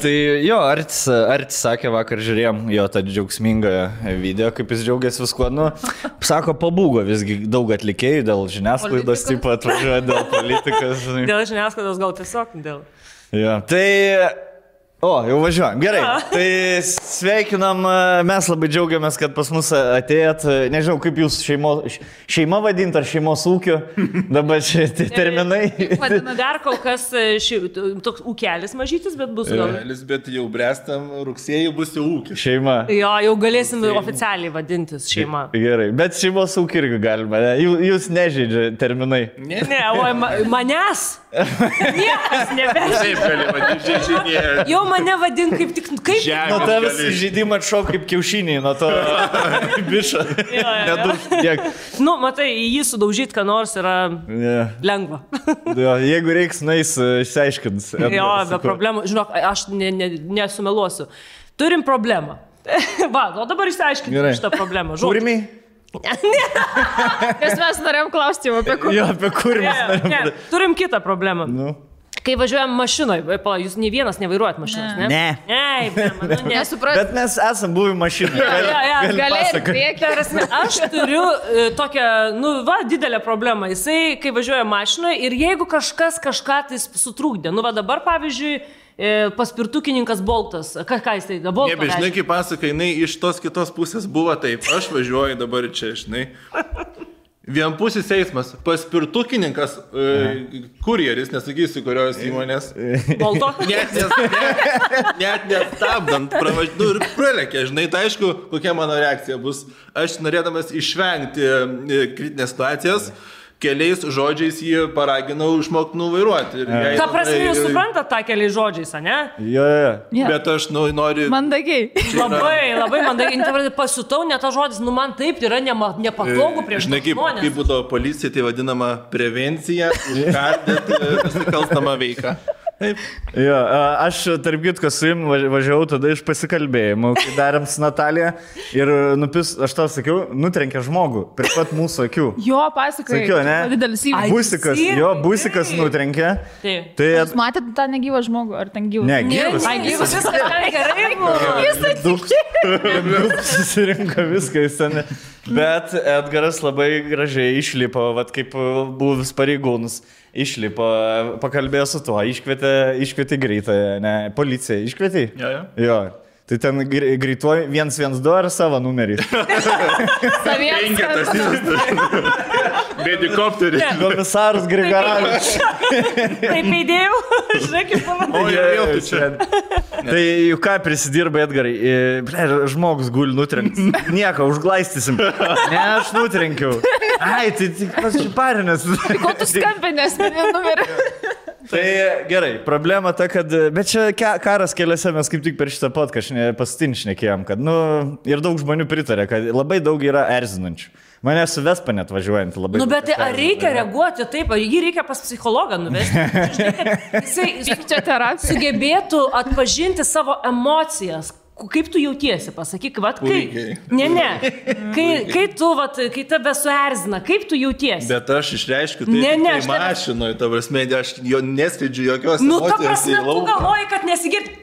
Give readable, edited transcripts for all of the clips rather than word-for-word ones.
Tai jo, Artis sakė, vakar žiūrėjom jo tą džiaugsmingą video, kaip jis džiaugiasi viskuo. Nu, sako, pabūgo visgi daug atlikėjų dėl žiniasklaidos, taip pat atvažiuoja dėl politikos. Dėl žiniasklaidos gal tiesiog dėl. Jo, tai... O, jau važiuojam. Gerai. Tai sveikinam, mes labai džiaugiamės, kad pas mus atėjot. Nežinau, kaip jūs šeima vadint ar šeimos ūkio. Dabar čia terminai. Vadina dar kol kas toks ūkelis mažytis, bet bus gal. Ūkelis, bet jau brestam rugsėjai bus jau ūkis. Šeima. Jo, jau galėsim oficialiai vadintis šeima. Gerai, bet šeimos ūkį irgi galima. Jūs nežaidžia terminai. Ne, o manęs. Niekas nebežaidžia. Taip, gali vadinti žaidėją. Jau mane vadin kaip tik... Kaip? Nuo tavęs žaidimą atšok kaip kiaušiniai, nuo to bišą. Nedaug tiek. Nu, matai, jį sudaužyti, ką nors yra lengva. Jo, jeigu reiks, nueis, išsiaiškins. Jo, be problemų. Žinok, aš nesumeluosiu. Turim problemą. Va, o dabar išsiaiškinti šitą problemą. Kūrimiai? Nes mes norėjom klausti apie kurį. Jo, apie kurį. Turim kitą problemą. Nu. Kai važiuojam mašinoje, jūs nei vienas nevairuojat mašinos, ne? Ne. Nesupratau. Bet mes esam buvę mašinoje. Galėjai. Aš turiu tokią, didelę problemą. Jisai, kai važiuoja mašinoje ir jeigu kažkas kažką tai sutrūkdė, dabar, pavyzdžiui, paspirtukininkas Boltas. Ką jis tai? Boltas. Ne, bet žinai, kaip pasaka, jinai iš tos kitos pusės buvo taip. Aš važiuoju dabar čia, žinai. Vienpusis eismas. Paspirtukininkas, kurjeris, nesakysiu, kurios įmonės. Bolto? Net nestabdant, ir pralekė, žinai, tai aišku, kokia mano reakcija bus. Aš norėdamas išvengti kritinės situacijas, keliais žodžiais jį paraginau išmokti nuvairuoti. Ką prasme, jūs suprantat tą keliais žodžiais, ne? Jo. Bet aš noriu... Mandagiai. Labai mandagiai. Pasiutau, ne tas žodis, man taip yra nepatogu prieš žmonės. Žinai, kaip būdavo policija, tai vadinama prevencija, užkardyti nusikalstamą veiką. Taip. Jo, aš tarp kitko su jum važiavau tada iš pasikalbėjimų, kai darėm su Natalija ir aš tau sakiau, nutrenkė žmogų prie pat mūsų akių. Jo, pasakai. Sakiau, ne? Didelis įvykis. Busikas nutrenkė. Tai jūs matėte tą negyvą žmogų, ar ten gyvą? Ne, gyvas. Ai, gyvas. Viskas gerai buvo. Jis Daug susirinko viską į sceną. Bet Edgaras labai gražiai išlipo, kaip buvęs pareigūnus. Išlipo, pakalbėjo su tuo, iškvietė greitąją, ne, policiją, iškvietė? Jo. Tai ten greituoju 112 ar savo numerį? Penketas. Bedikopterį. Komisaras Grigaravičius. Taip įdėjau, žinai, kaip pavadėjau. Tai juk ką prisidirba Edgarai? Žmogus guli nutrenkti. Nieko, užglaistysim. Ne, aš nutrenkiau. Ai, tai tik pasiparinęs. Ko tu skambinės, mane numerį? Tai gerai, problema ta, kad... Bet čia karas keliose mes kaip tik per šitą podcastą pastinšnekėjom, kad, ir daug žmonių pritarė, kad labai daug yra erzinančių. Mane su Vespa net važiuojant labai... Bet ar reikia reaguoti taip, ar jį reikia pas psichologą nuvesti? Jisai sugebėtų atpažinti savo emocijas. Kaip tu jautiesi, pasakyk, kai tave suerzina, kaip tu jautiesi? Bet aš išreiškiu tai mašinoje, ta prasme, aš jo neskleidžiu jokios emocijos. Ta prasme, tu galvoji, kad nesigirdi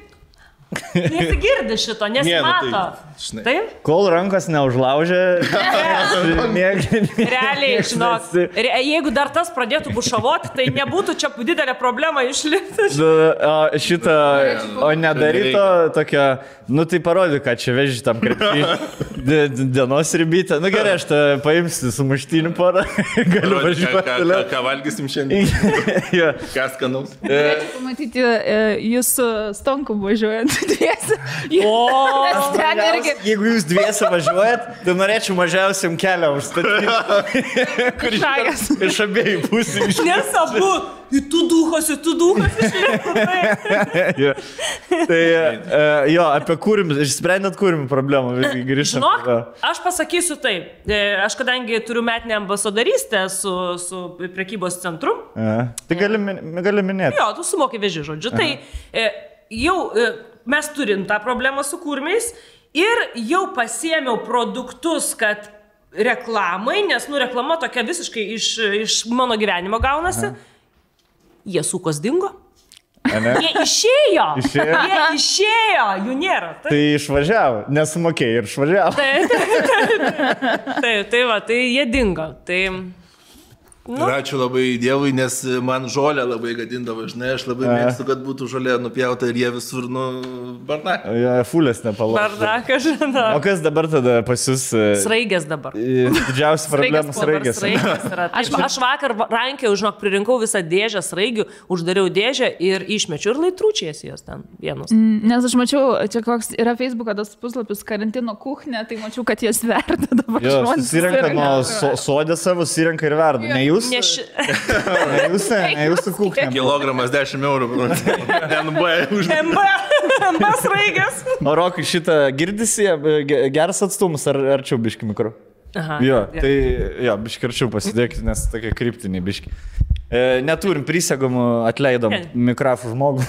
šito, nesimato. Taip? Kol rankos neužlaužė, realiai, žinok, jeigu dar tas pradėtų bušavoti, tai nebūtų čia didelė problema išlipti. O nedaryto tokia, tai parodyk, ką čia veži tam krepšį dienos ribytę. Gerai, aš tą paimsiu su muštiniu porą, galiu važiuoti. Ką valgysim šiandien? Ką skanaus? Norėčiau pamatyti jūsų stonku važiuojant dviesi. Jeigu jūs dviesi važiuojat, tai norėčiau mažiausiam kelią užstatyti. Iš abiejų pusių. Nes abu, tu duhos išlipo. Tai jo, apie kūrimus, išsprendėt kūrimų problemą, grįžtam. Žinok, aš pasakysiu taip. Aš kadangi turiu metinę ambasadorystę su prekybos centru. Tai gali minėti. Jo, tu sumoki veži, žodžiu. Tai jau mes turim tą problemą su kūrimiais. Ir jau pasiėmiau produktus, kad reklamai, nes reklama tokia visiškai iš mano gyvenimo gaunasi. Jie sukos dingo. Jie išėjo. Išėjo? Jie išėjo, jų nėra. Tai išvažiavo, nesumokėjai ir išvažiavo. Tai va, tai jie dingo. Tai... Nu. Ir ačiū labai Dievui, nes man žolę labai gadindavo, žinai, aš labai mėgstu, kad būtų žolė nupjauta ir jie visur, bardakas. Ja, fulės nepalauks. Bardakas, žinau. O kas dabar tada pas jūs? Sraigės dabar. Didžiausia problema sraigės. Aš vakar rankiau, žinok, pririnkau visą dėžę sraigių, uždariau dėžę ir išmečiau ir laitručiais jos ten vienus. Nes aš mačiau, čia koks yra Facebook'o tas puslapis karantino kuchnė, tai mačiau, kad jie sverda dabar. Jo, susirenka nuo sodė savo, susirenka ir verda. Ne jūs? Ne jūsų kuchnė. Kilogramas 10 eurų. MB sraigės. O Rokai, šitą girdisi, geras atstumus ar arčiau biški mikro? Aha. Jo, tai jo, biški arčiau pasidėkite, nes tokie kryptiniai biški. Neturim prisegomų, atleidom mikrofų žmogų.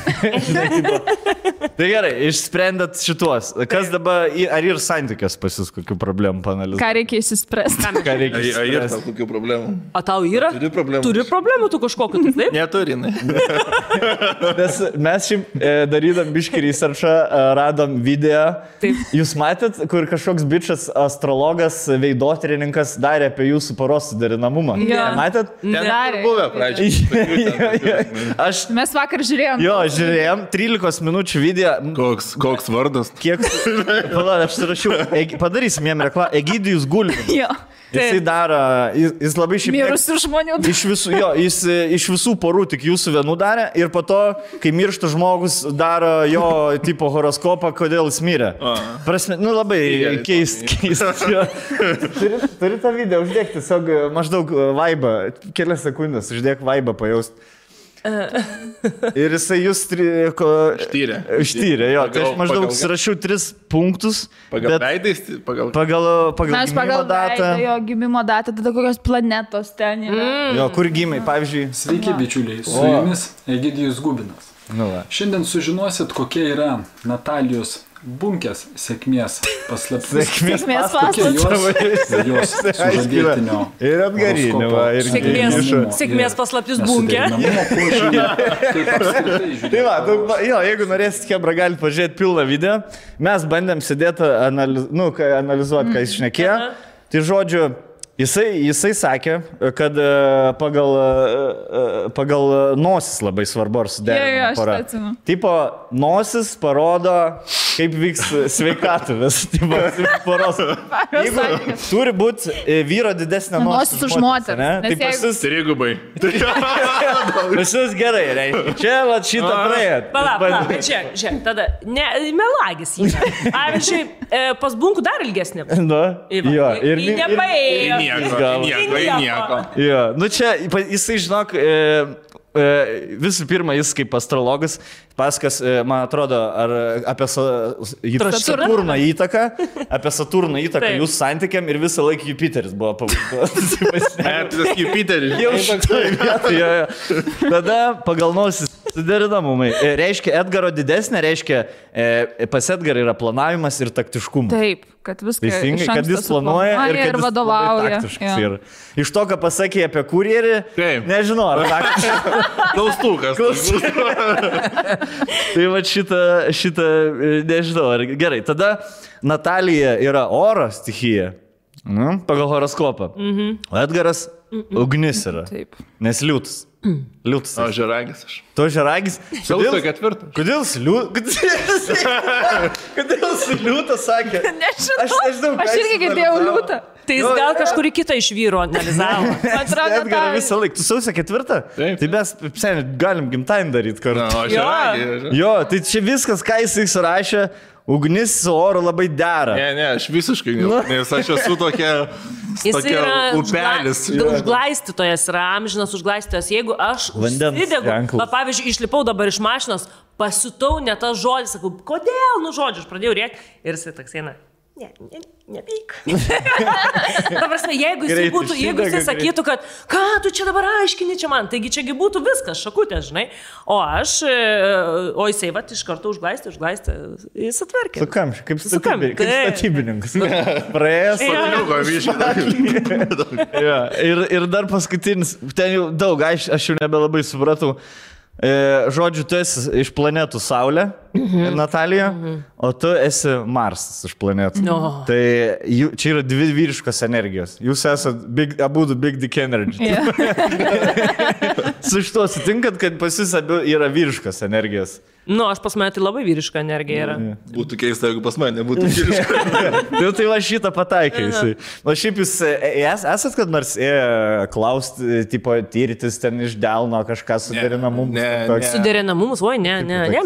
Tai gerai, išsprendėt šituos. Kas dabar, ar ir santykios pas jūs kokių problemų panalizuoti? Ką reikia išsispręsti? Ką reikia išspręsti? Ar yra kokių problemų? O tau yra? Turi problemų. Turi problemų tu kažkokiu, tai taip? Neturinai. Nes mes šiaip darydam biškį researchą, radom video. Taip. Jūs matėt, kur kažkoks bičas, astrologas, veidotyrininkas darė apie jūsų poros suderinamumą? Ja. Matėt? Ten buvę pradžioje. Mes vakar žiūrėjom. Jo, žiūrėjom, 13 minučių video. Koks vardas? Kiek? Palauk, aš surašiau. Padarysim jam reklamą. Egidijus Gulbinas. Jo. Jisai daro, jis labai šiaip... Mirusių žmonių. Jis iš visų porų tik jūsų vienų darė ir po to, kai miršta žmogus, daro jo tipo horoskopą, kodėl jis mirė. Prasme, labai keist. Turi tą video uždėkti, tiesiog maždaug vaibą, kelias sekundės, uždėk vaibą pajaust. Ir jisai jūs ištyrė, jo. Tai aš maždaug surašiau 3 punktus. Pagal veidais? Pagal gimimo datą. Jo gimimo datą, tada kokios planetos ten yra. Jo, kur gimai, pavyzdžiui. Sveiki, bičiuliai, su jumis Egidijus Gubinas. Šiandien sužinosit, kokia yra Natalijos Bunkės sėkmės paslaptis. Sėkmės paslaptis. Jos sužadėtinio. Ir atgarinio. Sėkmės paslaptis Bunkė. Tai va, jo, jeigu norėsit Hebra, galite pažiūrėti pilną video. Mes bandėm sėdėti, analizuoti, ką jis šnekėjo. Tai žodžiu, jisai sakė, kad pagal nosis labai svarbu ar suderinama pora. Tipo, nosis parodo, kaip vyks sveikatuvės. Tipo, poros. Jeigu turi būti vyro didesnė nosis už moterį. Tai pasis... Trigubai. Pasis gerai, reiškia. Čia va šitą praėjo. Palauk, žiūrėk, tada, melagis jį. Pavyzdžiui, pas Bunkų dar ilgesnė. Jo, ir nepaėjo. Nieko. Jo, nu čia, jisai žinok, visų pirma, jis kaip astrologas paskas, man atrodo, ar apie Saturno įtaką, jūsų santykiam ir visą laiką Jupiteris buvo pavadintas. Jupiteris. Jau šitoje vietoje. Tada pagal nosis suderinamumai. Reiškia, Edgaro didesnė, reiškia, pas Edgarą yra planavimas ir taktiškumas. Taip, kad viską teisingai, kad jis planuoja ir kad jis vadovauja. Ir iš to, ką pasakė apie kurjerį, nežinau, ar taktiškai. Klaustukas. Tai va šitą, nežinau, ar gerai. Tada Natalija yra oro stichija, pagal horoskopą. O Edgaras ugnis yra, nes liūtas. Liūtas. O žeragis aš. To žeragis? Sausio 4. Kodėl liūtas sakė? Nežinau, aš irgi girdėjau liūtą. Tai jis gal kažkurį kitą iš vyro analizavo. Edgarą visą laiką. Tu sausio 4? Tai mes galim gimtadienį daryti kartu. Jo, tai čia viskas, ką jis surašė. Ugnis su oru labai dera. Ne, aš visiškai ne. Nes aš esu tokia upelis. Užglaistytojas yra amžinas užglaistytojas. Jeigu aš užsidegu, pavyzdžiui, išlipau dabar iš mašinos, pasitau ne tas žodis, sakau, kodėl, žodžiu, aš pradėjau rėkti ir jisai toks eina. Nepyk. Ta prasme, jeigu jisai sakytų, kad ką tu čia dabar aiškini čia man, taigi čiagi būtų viskas, šakutė, žinai. O jisai vat iš karto užglaistė, jis atverkė. Kaip statybininkas. Praėjęs. Ir dar paskutinis, ten jau daug, aš jau nebelabai supratau. Žodžiu, tu esi iš planetų Saulė, Natalija, o tu esi Marsas iš planetų. Tai čia yra dvi vyriškos energijos. Jūs esate abudu Big Dick Energy. Su šituo sutinkat, kad pas jūs abu yra vyriškos energijos. Aš pas mane tai labai vyriška energija yra. Būtų keista, jeigu pas mane nebūtų vyriška. Tai va šitą pataikai. O šiaip jūs esat kad nors klausti, tipo, tyritis ten iš delno kažką suderinamumus? Suderinamumus, ne,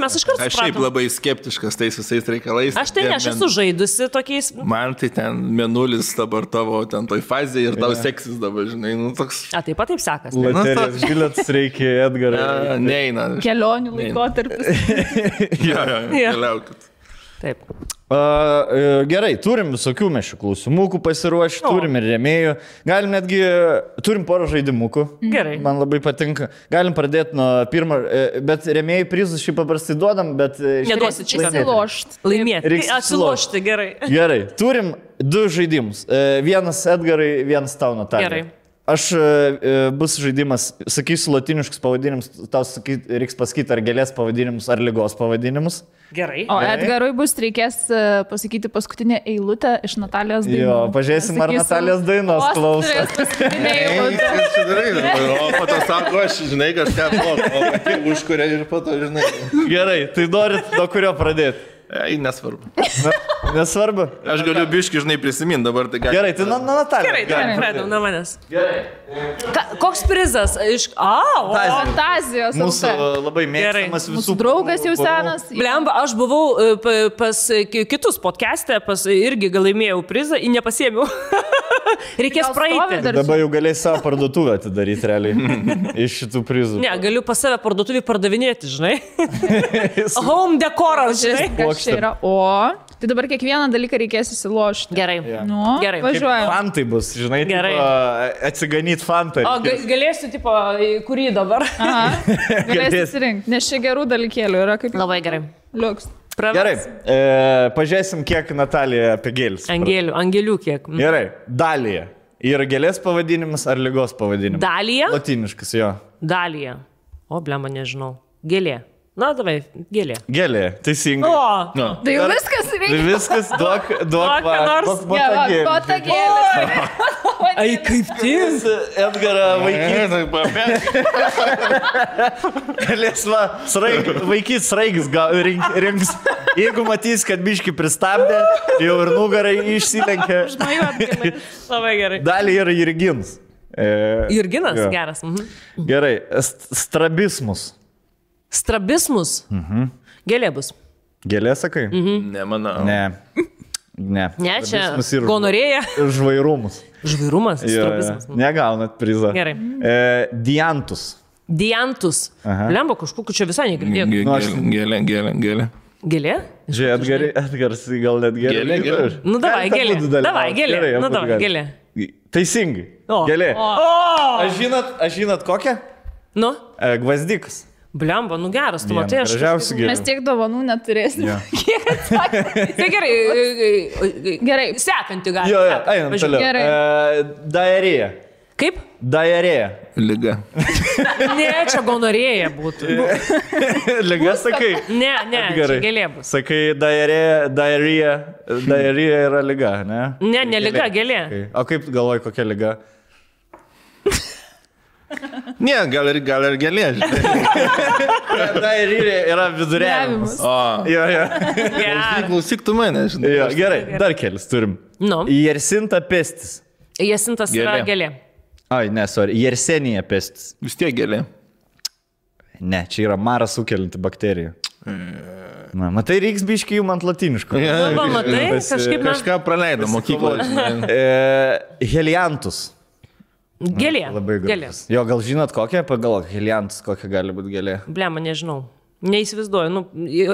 mes iš karto aš šiaip labai skeptiškas tais visais reikalais. Aš esu žaidusi tokiais. Man tai ten mėnulis dabar tavo ten toj fazėje ir tau seksis dabar, žinai, toks. Taip pat taip sekas. Loterijos bilietas reikia, Edgarai. Neina. Kelionių laikotarpis. Keliaukit. Taip. Gerai, turim visokių mešių klausimukų pasiruošti, turim ir rėmėjų. Galim netgi, turim porą žaidimukų. Gerai. Man labai patinka. Galim pradėti nuo pirmo, bet rėmėjų prizus šį paprastai duodam, bet... Neduosit šį Atsilošti. Laimėti. Atsilošti, gerai. Gerai, turim 2 žaidimus. Vienas Edgarai, vienas tau, Natalija. Gerai. Aš bus žaidimas, sakysiu latiniškus pavadinimus, tau reiks pasakyti ar gėlės pavadinimus, ar lygos pavadinimus. Gerai. O Edgarui reikės pasakyti paskutinę eilutę iš Natalijos dainos. Jo, pažiūrėsim, ar Natalijos dainos klauso. O po to sako, aš žinai kažką už kurią ir po to žinai. Gerai, tai norit nuo kurio pradėti? Nesvarbu. Nesvarbu? Aš galiu biški, žinai, prisiminti dabar. Tai gerai, tai nuo Natalijos. Gerai, pradėjau nuo manęs. Gerai. Koks prizas? Fantazijos. Mūsų labai mėgstamas visų. Mūsų draugas jau senas. Blemba, aš buvau pas kitus podcast'e, irgi gal laimėjau prizą, nepasiėmiau. Reikės praeiti. Dabar jau galės savo parduotuvę atidaryti realiai iš šitų prizų. Ne, galiu pas save parduotuvį pardavinėti, žinai. Home dekoras, žinai. Čia yra, tai dabar kiekvieną dalyką reikės įsilošti. Gerai. Gerai. Važiuojam. Fantai bus, žinai, atsiganyti fantai. O galėsiu, tipo, kurį dabar? Galėsiu įsirinkti, nes čia gerų dalykėlių yra kaip... Labai gerai. Liuks. Gerai, pažiūrėsim, kiek Natalija apie gėlis. Angelių kiek. Gerai, Dalija. Yra gėlės pavadinimas ar lygos pavadinimas? Dalija? Latiniškas, jo. Dalija. O, blemba, nežinau. Gėlė. Na, davai, gėlė. Gėlė, teisingai. O, tai jau viskas reikia. Tai viskas, duok nors. Botagėlė. Ai, kaip tik. Edgarą vaikyti. Galės vaikyti sraigis rinks. Jeigu matys, kad biški pristabdė, jau ir nugarai išsilenkia. Labai gerai. Dalį yra Jurginas. Jurginas, geras. Gerai, strabismus. Strabismus? Gėlė bus. Gėlė, sakai? Nemanau. Ne, čia gonorėja. Žvairumus. Žvairumas? Strabismus. Negaunat prizą. Gerai. Diantus. Diantus. Lemba, kažkokiu čia visai negirdėjau. Gėlė. Gėlė? Žiūrėk, Edgaras gal net gėlė. Nu, davai, gėlė. Davai, gėlė. Nu, davai, gėlė. Teisingai. Gėlė. Aš žinot kokią? Nu? Gvazdikas. Blemba, nu geras, tu matai, aš... Mes tiek dovanų neturėsim. Kiek atsakė? Tai gerai. Gerai. Sekantį gali. Jo, einam toliau. Diarėja. Kaip? Diarėja. Liga. Ne, čia gonorėja būtų. Liga, sakai? Ne, čia gėlė bus. Sakai, diarėja yra liga, ne? Ne, liga, gėlė. O kaip galvoji, kokia liga? Ne, gal ir gėlė, žinai. Diarėja yra viduriavimas. Jo. Klausyk tu mane, žinai. Gerai, dar kelis turim. Jersinta pestis. Jersintas yra gėlė. Ai, ne, sorry. Jersenija pestis. Vis tiek gėlė. Ne, čia yra marą sukelianti bakterija. Na, matai, reiks biškai jum ant latiniško. Matai, kažkaip mes... Kažką praleidom mokykloje. Heliantus. Gėlė. Labai gražus. Jo, gal žinot kokią? Pagalvok, heliantus, kokia gali būti gėlė. Blema, nežinau. Neįsivaizduoju.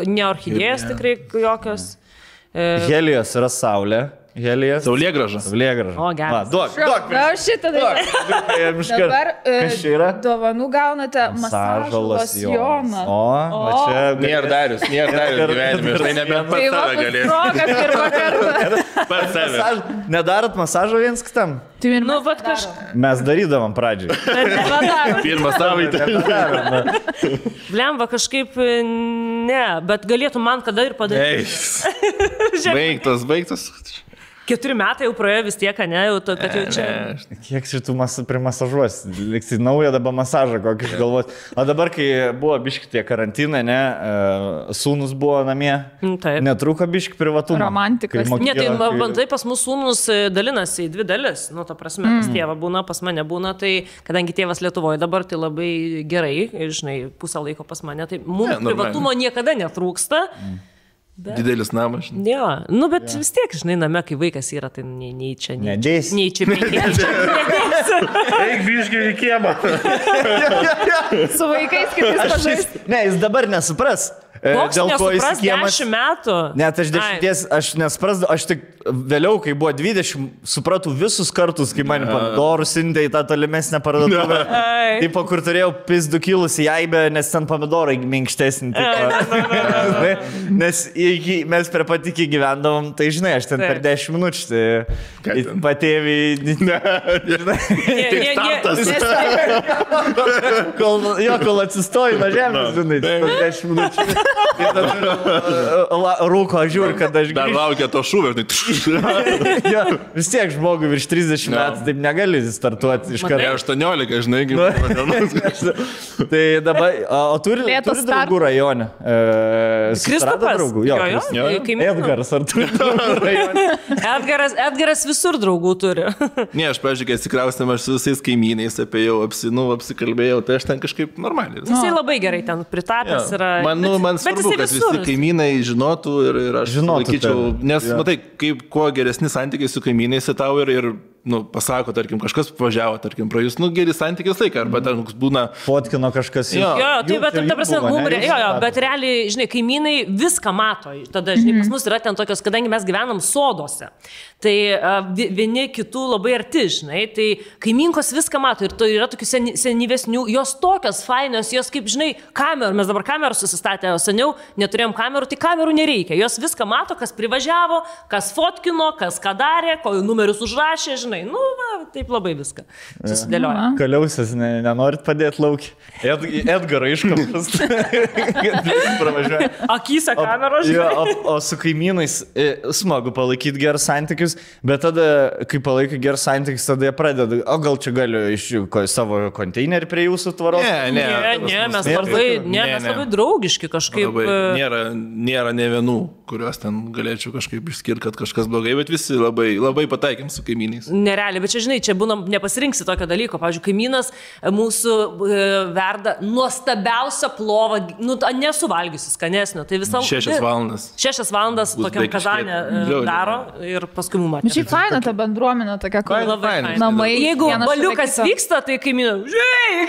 Ne orchidėjas tikrai jokios. Helijos yra saulė. Helijas. Saulėgraža. Saulėgraža. O, geras. Duok. Na, šitą dalyką. Dabar Kas čia yra? dovanų gaunate masažo losjoną. O, va čia. Nėra Darius gyvenime, aš tai nebent Tai pats va, save galėsiu. proga pirmą kartą. Pats save. Nedarot masažo viens kitam? Tai ir Nu, mes vat darom. Mes darydavom pradžiai. Pirmą savaitę. Blemba kažkaip ne, bet galėtų man kada ir padaryti. Baigtas. 4 metai jau praėjo vis tiek, ne, jau to, kad jau čia. Kiek šitų primasažuos? Liksi naują dabar masažą kokį išgalvoti. O dabar, kai buvo biški tie karantinai, ne, sūnus buvo namie, Taip. netruko biški privatumą. Romantikos. Kai Ne, tai mokykla- bandai pas mūsų sūnus dalinasi į 2 dalis. Nu, ta prasme, pas tėvą būna, pas mane būna, tai kadangi tėvas Lietuvoje dabar, tai labai gerai, žinai, pusę laiko pas mane, tai mums normaliai. privatumo niekada netrūksta. Didelis namas. Jo, nu, bet vis tiek, žinai, name, kai vaikas yra, tai nei čia, Nedėsi. nei čia, nedėsi. Eik biškai į kiemą. Su vaikais kitais pažaisti. Ne, jis dabar nesupras. Koks Dėl ko jis nesupras kiemas. 10 metų? Net aš 10, aš nesprasdavau, aš tik vėliau, kai buvo 20, supratau visus kartus, kai man pomidorus sintė į tą tolimesnę parduotuvę. Ai. Taip, kur turėjau pizdu kilusi jaibę, nes ten pomidorai minkštesnį. Nes mes prie pat iki gyvendavom, tai žinai, aš ten per 10 minučių patėvį. Kol atsistoju nuo žemės, žinai, per 10 minučių. Rūko, žiūri, kad aš Dar laukia to šūvio. Jo, vis tiek žmogui virš 30 metų, taip negali startuoti iš karto. 18, žinai, kaip. Tai dabar, o turi draugų rajone? Kristupas. Draugų, Jo, kaimynas. Edgaras, ar turi draugų rajone? Edgaras visur draugų turi. Ne, aš, pavyzdžiui, kai atsikraustėm, aš su visais kaimynais apsikalbėjau, tai aš ten kažkaip normaliai. Jisai labai gerai ten pritapęs yra. Man svarbu, kad visi kaimynai žinotų ir aš laikyčiau, nes matai, kaip kuo geresni santykiai su kaimynais tau ir pasako, tarkim, kažkas važiavo, tarkim, pra jūs, geri santykiai laiką, arba ten būna... Fotkino kažkas. Jo, tai bet, ta prasme, bet realiai, žinai, kaimynai viską mato. Tada, žinai, pas mus yra ten tokios, kadangi mes gyvenam sodose, tai vieni kitų labai arti, žinai, tai kaiminkos viską mato ir tai yra tokių senyvesnių, jos tokios fainos, jos kaip, žinai, kamerų, mes dabar kamerų susistatė, o seniau neturėjom kamerų, tai kamerų nereikia, jos viską mato, kas privažiavo, kas fotkino, kas ką darė, ko numerius užrašė, žinai, taip labai viską susidėlioja. Kaliausias, nenorit padėti laukį. Edgarą iškapas. Akyse kameros, žinai. žinai. O su kaimynais smagu palaikyti gerus santykius, bet tada, kai palaikai gerus santykius, tada jie pradeda, o gal čia galiu iš savo konteinerį prie jūsų tvaros? Ne, mes labai draugiški kažkaip. Nėra ne vienų, kuriuos ten galėčiau kažkaip išskirti, kad kažkas blogai, bet visi labai pataikėm su kaimynais. Nerealiai, bet čia, žinai, čia būna, nepasirinksi tokio dalyko. Pavyzdžiui, kaimynas mūsų verda nuostabiausią plovą, nesuvalgysi skanesnio. Tai visą 6 valandas. 6 valandas tokiam kazanė daro ir paskui mums matė. Šiaip faina ta bendruomenė tokia, kur namai. Jeigu baliukas vyksta, tai kaimynai, žiūrėk,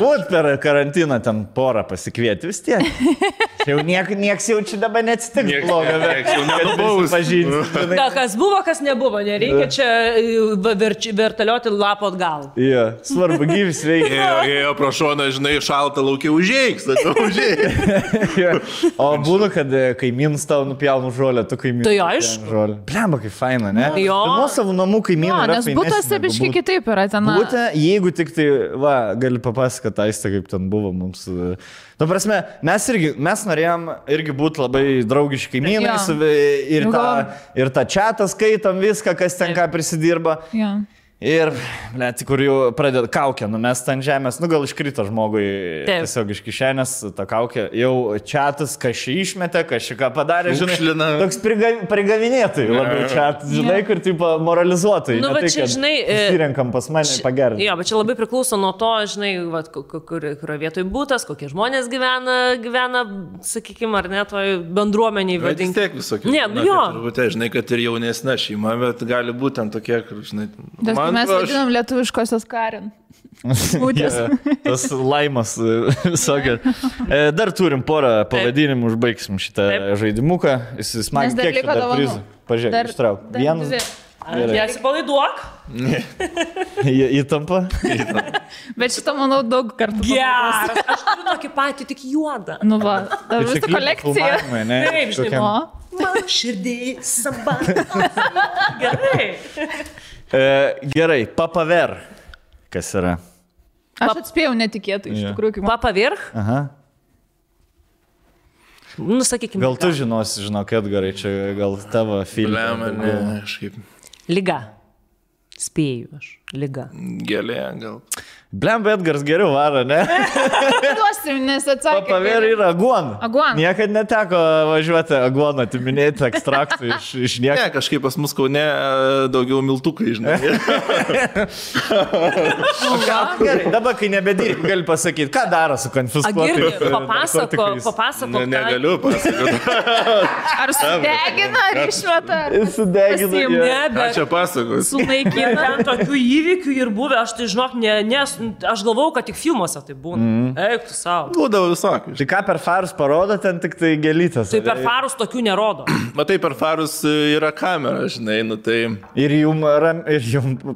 Būt per karantiną ten porą pasikvieti vis tiek. Jau nieks jau čia dabar neatsitiks blogo. Kas buvo, kas nebuvo, nereikia čia vertalioti lapo atgal. Svarbu gyvis veikia. Ėjo pro šoną, žinai, šaltą laukia užėjks, O būna, kad kaimynas tau nupjaunu žolę, tu kaimynas. Tai aišku. Blemba, kaip faina, ne? Jo. Nuo savo namų kaimynų. Nes būtas biškai kitaip yra ten. Būtent, jeigu tik tai, gali papasakoti aistą, kaip ten buvo mums. Nu, prasme, mes norėjom irgi būti labai draugiški kaimynais ir tą čatą skaitom viską, kas ten ką prisidirba. Ir, kur jau pradeda kaukę numest ant žemės, gal iškrito žmogui tiesiog iš kišenės tą kaukę, jau čatas kažkai išmetė, kažką padarė, žinai, toks prigavinėtai labiau čatas, žinai, kur taip moralizuotai. Nu, bet čia, žinai, susirenkam pas mane pagerinti. Jo, bet čia labai priklauso nuo to, žinai, kurioje vietoje būtas, kokie žmonės gyvena, sakykime, ar ne, toj bendruomeniai vadinkim. Vis tiek visokių. Ne, jo. Žinai, kad ir jaunesnė šeima, bet gali būti ten tokie, kur, žinai, Mes vadinam lietuviškosios Karin. Tas laimas visokia. Dar turim porą pavadinimų, užbaigsim šitą žaidimuką. Jis smagiai Nes dar kiek liko dar dovanų. prizų. Pažiūrėk, ištrauk. Vienas. Nesipalaiduok. Įtampa. Bet šitą, manau, daug kartų. Geras. Aš turiu tokį patį, tik juodą. Nu va, dar visą kolekciją. Taip, žinai, man širdį samba. Gerai. Gerai, papaver. Kas yra? Aš atspėjau netikėtai, iš tikrųjų, kaip man. Papa virch? Aha. Nu, sakykime. Gal tu žinosi, žinok, Edgarai, čia gal tavo filmai. Blem, ne, kažkaip. Liga. Spėju aš. Liga. Gėlė, gal. Blem, Edgars geriau varo, ne? Duosim, nes atsakė. Papaver yra aguona. Aguona. Niekad neteko važiuoti aguoną, atiminėti ekstraktų iš nieko. Ne, kažkaip pas mus Kaune daugiau miltukai, žinai. Gerai, dabar, kai nebedirbi, gali pasakyti, ką daro su konfiskuotais. Papasako. Negaliu pasakoti. Ar sudegina, ar išmeta? Sudegina. Ne, Ką bet čia pasakos? sunaikina. Ten tokių įvykių ir buvę, aš tai žinok, aš galvau, kad tik filmuose tai būna. Eik tu savo. Būdavo visokių. Tai ką per farus parodo, ten tik tai gelytas. Tai per farus tokių nerodo. Matai, per farus yra kamera, žinai, nu tai... Ir jum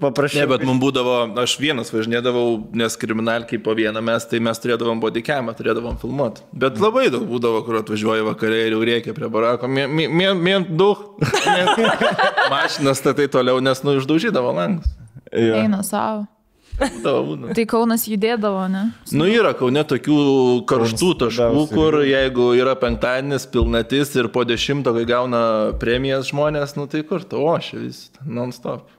paprašau. Ne, bet mums būdavo, aš vienas važinėdavau, nes kriminalkiai po vieną mes, tai mes turėdavom bodycamą, turėdavom filmuoti. Bet labai daug būdavo, kur atvažiuoja vakarė ir jau reikia prie barako. Mien daug. Mašinas statai toliau, nes nu išdaužydavo langus. Eina savo. Būdavo. Tai Kaunas judėdavo, ne? Nu yra Kaune tokių karštų taškų, kur jeigu yra penktadienis, pilnatis ir po 10, kai gauna premijas žmonės, nu tai kur, o šia vis, non-stop.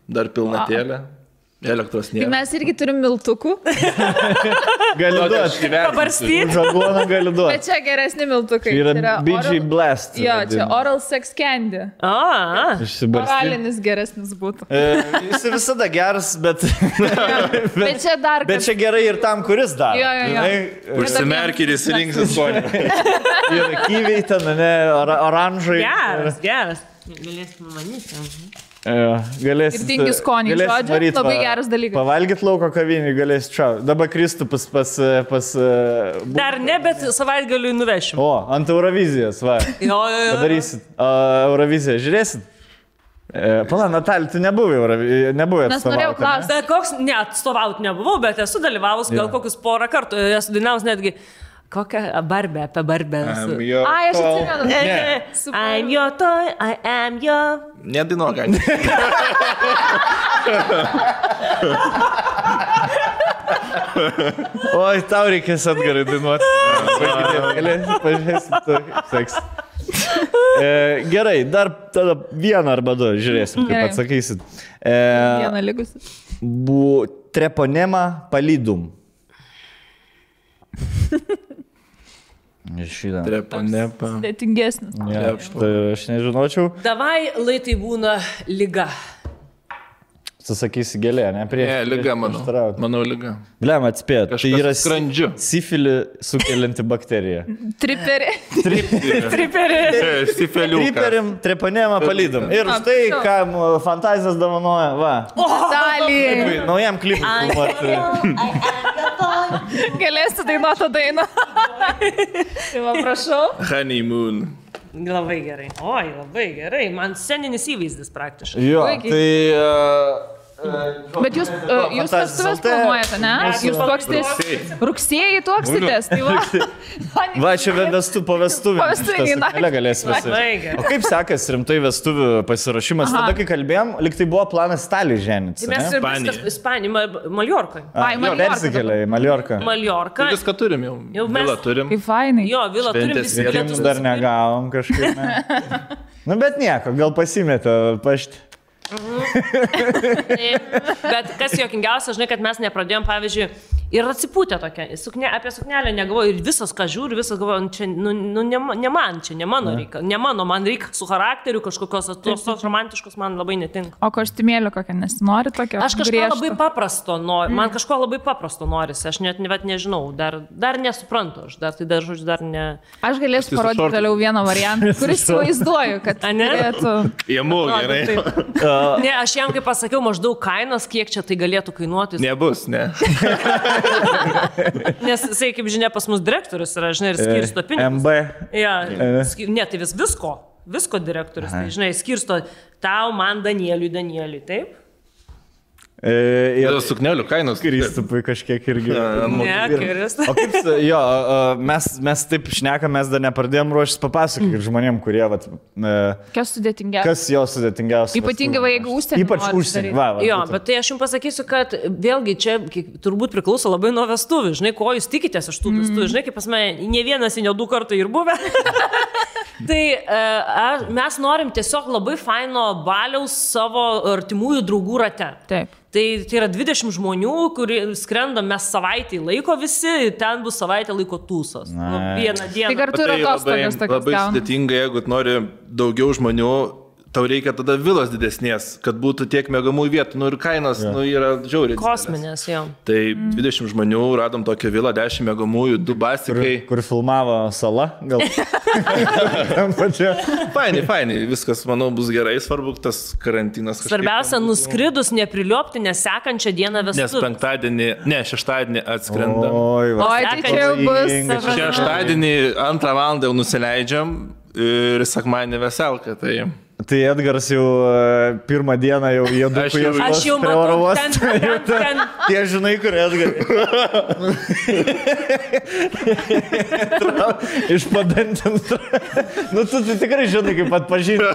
Dar pilnatėlė. Elektros nėra. Mes irgi turim miltukų. Gali duoti. Pabarstyti. Žagoną gali duoti. Bet čia geresni miltukai. Tai yra BG Blast. Jo, čia Oral Sex Candy. Išsibarstyti. Oralinis geresnis būtų. Jis visada geras, bet... Bet čia dar... Bet čia gerai ir tam, kuris dar. Jo. Užsimerk ir įsirinksis skonį. Ir kyviai ten, ne, oranžai. Geras. Galėsim manyti. Galėsit. Ir tingi skonį, žodžiu, labai geras dalykas. Pavalgyt lauko kavinį galėsit čia. Dabar Kristupas pas... Dar ne, bet savaitgaliui nuvešim. O, ant Eurovizijos, va. Jo. Padarysit. Euroviziją žiūrėsit? Pala, Natalija, tu nebuvai atstovauti. Nes norėjau klausti. Bet koks, ne, atstovauti nebuvau, bet esu dalyvavus gal kokius porą kartų. Esu dainavus netgi... Kokią barbę, apie barbę. Ai, aš atsimenu. I'm your toy, I am your... Nedainuok, gal. Oi, tau reikės Edgarai dainuoti. Pažiūrėsim, tu seks. Gerai, dar tada vieną arba du, žiūrėsim, kaip atsakysit. Vieną likusi. Treponema palidum. Šitą. Treponepa. Dėtingesnis. Tai aš nežinočiau. Davai, lai tai būna liga. Sakysi gėlė, ne? Ne, liga, manau liga. Blem, atspėt. Tai yra skrandžiu. Sifilį sukelianti bakterija. Triperį. Sifeliuką. Triperim, treponema palydom. Ir štai, kam fantazijas dovanoja, va. Dalį. Naujam klipui. Galėsi dainuoti dainą. Tai va, prašau. Honeymoon. Labai gerai. Oi, labai gerai. Man sceninis įvaizdis praktiškai. Jo, tai... Bet jūs vestuvės planuojate, ne? Jūs tuoksitės rugsėjai tuoksitės, tai va. Va, čia po vestuvių. Po vestuvių, na. Galės visi. O kaip sekas rimtai vestuvių pasirašymas? Tada, kai kalbėjom, lyg tai buvo planas Italijai ženytis. Mes ir viskas Ispanijai, Maljorkai. Persikėlė į Maljorką. Maljorką. Viską turim jau. Vilą turim. Kaip fainai. Jo, vilą turim, visi bilietus. Dar negavom kažkaip. Nu, bet nieko, gal pasimetė pašti. Bet kas juokingiausia, žinai, kad mes nepradėjom, pavyzdžiui, Ir atsipūtė tokia. Apie suknelę negalvoju ir visas, ką žiūri, visas galvoju, čia, ne man, čia ne mano reikia. Ne mano, man reikia su charakteriu kažkokios tos romantiškos, man labai netinka. O kostiumėlio kokią nesinori tokio? Aš kažko labai paprasto noriu, man kažko labai paprasto norisi, aš net nežinau, dar nesuprantu, aš žodžiu, dar ne... Aš galėsiu parodyti toliau vieną variantą, kuris vaizduoju, kad galėtų... Jėmų, gerai. Ne, aš jam kaip pasakiau maždaug kainas, kiek čia tai galėtų kainuoti. Nebus, ne. Nes jisai, kaip žinia, pas mus direktorius yra, žinai, ir skirsto pinigus. MB. Ja, ne, tai visko direktorius, tai, žinai, skirsto tau, man, Danieliui, taip? Ir suknelių kainos. Kristupui kažkiek irgi. Ne, Kristus. O kaip, jo, mes taip šnekam, mes dar nepradėjom ruoštis papasakoti žmonėm, kurie, vat... Kas sudėtingiausia? Kas jo sudėtingiausia? Ypatingai, jeigu užsienį. Ypač užsienį. Jo, bet tai aš jums pasakysiu, kad vėlgi čia turbūt priklauso labai nuo vestuvių. Žinai, ko jūs tikitės iš tų vestuvių. Žinai, kaip pas mane, ne vienas, ne du kartai ir buvę. Tai mes norim tiesiog labai faino baliaus savo artimųjų draugų rate. Taip. Tai yra 20 žmonių, kurie skrenda mes savaitį laiko visi, ten bus savaitę laiko tūsos. Vieną dieną. Tai kartu yra atostogas tokios. Labai sudėtinga, jeigu nori daugiau žmonių, tau reikia tada vilos didesnės, kad būtų tiek mėgamų vietų, ir kainos yra žiauriai. Kosminės, jo. Tai 20 žmonių, radom tokią vilą, 10 mėgamųjų, 2 basikai. Kur filmavo Sala, gal. Fainai, viskas, manau, bus gerai, svarbu tas karantinas. Svarbiausia, nuskridus, nepriliopti, nes sekančią dieną vestuvių. Nes šeštadienį atskrenda. Oi, tai čia jau bus. Šeštadienį 2 valandą jau nusileidžiam ir sekmadienį veselka, tai... Tai Edgaras jau pirmą dieną jau jėdukų ieškos. Aš jau matau, ten. Tie žinai, kur Edgaras. Iš padantins. Nu, tu tikrai žinai, kaip atpažinti.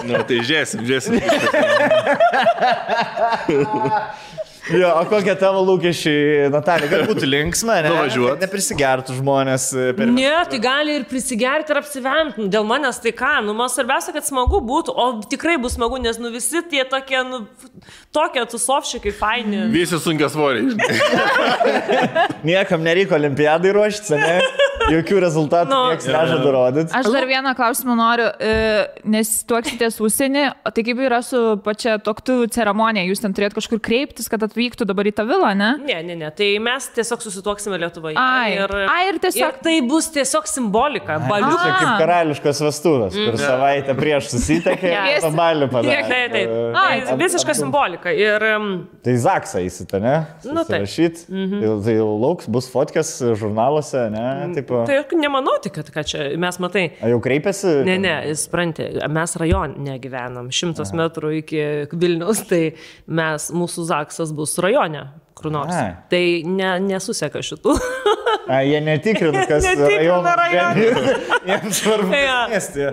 Nu, tai žiūrėsim. Jo, o kokie tavo lūkesčiai, Natalija, kad būtų linksma, ne? Nuvažiuot. Neprisigertų žmonės. Ne, tai gali ir prisigerti ir apsivemti. Dėl manęs tai ką, man svarbiausia, kad smagu būtų, o tikrai bus smagu, nes visi tie tokie, tokie tusovšikai faini. Visi sunkia svoriai. Niekam nereikia olimpiadai ruoštis, ne? Jokių rezultatų nieks nežada rodyti. Aš dar vieną klausimą noriu, nes tuoksitės užsienį, tai kaip yra su pačia tuoktuvių ceremonija, jūs ten turėt kažkur kreiptis, kad atvyktų dabar į tą vilą, ne? Ne, tai mes tiesiog susituoksime Lietuvoje. Ir tiesiog... Ir tai bus tiesiog simbolika, baliukas. Tai kaip karališkos vestuvės, kur savaitę prieš susitekė, pabalių padarė. Taip, visiška simbolika. Tai Zaksą įsita, ne? Susirašyt, tai jau lauks, bus fotkės žurnaluose, ne? Tai nemanau tik, kad čia mes matai. A jau kreipėsi? Ne, jis sprantė, mes rajone gyvenam, 100 metrų iki Vilniaus, tai mūsų Zaksas bus rajone, kur nors. Tai nesuseka šitų. Jie netikrina, kas rajone. Jiems svarbu miestį.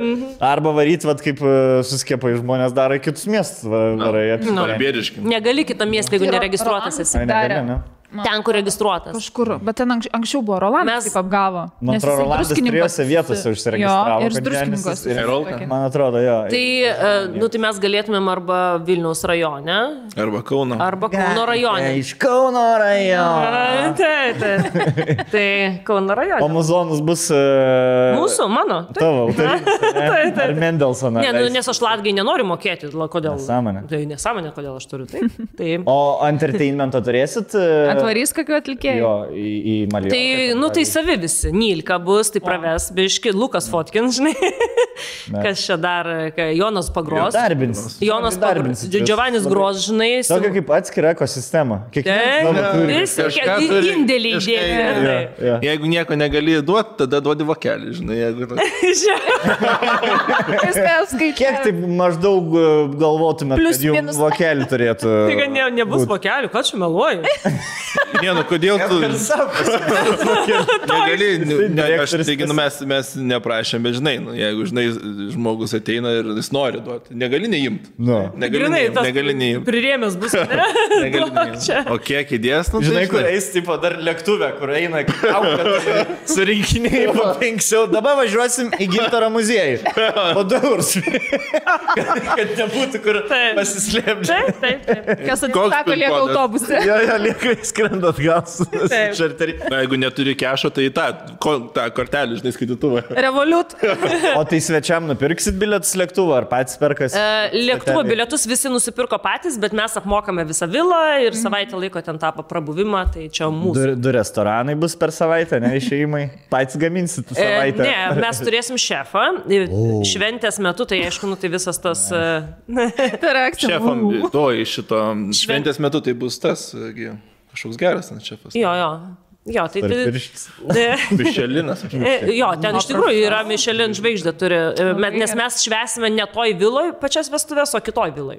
Arba varyt, kaip suskiepai žmonės daro į kitus miestus. Negali kitą miestą, jeigu neregistruotas esi. Ten, kur registruotas. Kažkur, bet ten anksčiau buvo Rolandas taip apgavo. Man atrodo, Rolandas trijose vietose užsiregistravo. Jo, ir druskininkas. Man atrodo, jo. Tai mes galėtumėm arba Vilniaus rajone. Arba Kauno. Arba Kauno rajone. Iš Kauno rajono. Tai Kauno rajone. O muzonas bus... Mūsų, mano. Tavo, autorinis. Ar Mendelsoną. Ne, nes aš latgai nenoriu mokėti. Kodėl? Nesąmonė. Tai nesąmonė, kodėl aš turiu. Taip. O entertainmento turėsit? Atvarys kokiu atlikėjų? Jo, į Maliorką. Tai savi visi. Nilka bus, tai praves, biški, Lukas Fotkins, žinai. Kas čia dar, Jonas Pagros. Jonas Pagros. Giovannis Gros, žinai. Tokia kaip atskira ekosistema. Kiekvienas turi indėlį įdėti. Jeigu nieko negali duoti, tada duodi vokelį, žinai. Kiek taip maždaug galvotumėt, kad jums vokelį turėtų? Tai nebus vokelių, ką čia meluoju? Ne, nu kodėl tu... Negali, aš taigi, mes neprašėm, bet žinai, jeigu, žinai, žmogus ateina ir jis nori duoti, negali neimti. Negali neimti. Prirėmės bus, ne? Negali neimti. O kiek įdės, nu, žinai, kur eis, tipo, dar lėktuvė, kur eina, surinkiniai po 5 eurų. Dabar važiuosim į Gintaro muziejų. Po 2 eurus. Kad nebūtų kur pasislėpti. Taip. Kas atsisako, lieka autobuse. Jo, lieka skrenda atgal su čarteriu. Na, jeigu neturi kešo, tai tą kortelį, žinai, skaitytuvą. Revolut. O tai svečiam nupirksit bilietus lėktuvo, ar patys perkas? Lėktuvo bilietus visi nusipirko patys, bet mes apmokame visą vilą ir savaitę laiko ten tą prabuvimą, tai čia mūsų. Du restoranai bus per savaitę, ne išėjimai? Patys gaminsit savaitę? Ne, mes turėsim šefą. Šventės metu, tai aišku, tai visas tas... Šefam, to iš šito šventės metu tai bus tas kažkoks geras šefas. Jo, tai... Mišelinas. Jo, ten iš tikrųjų yra Michelin žvaigždė turi, nes mes švesime ne toj viloj pačias vestuvės, o kitoj viloj.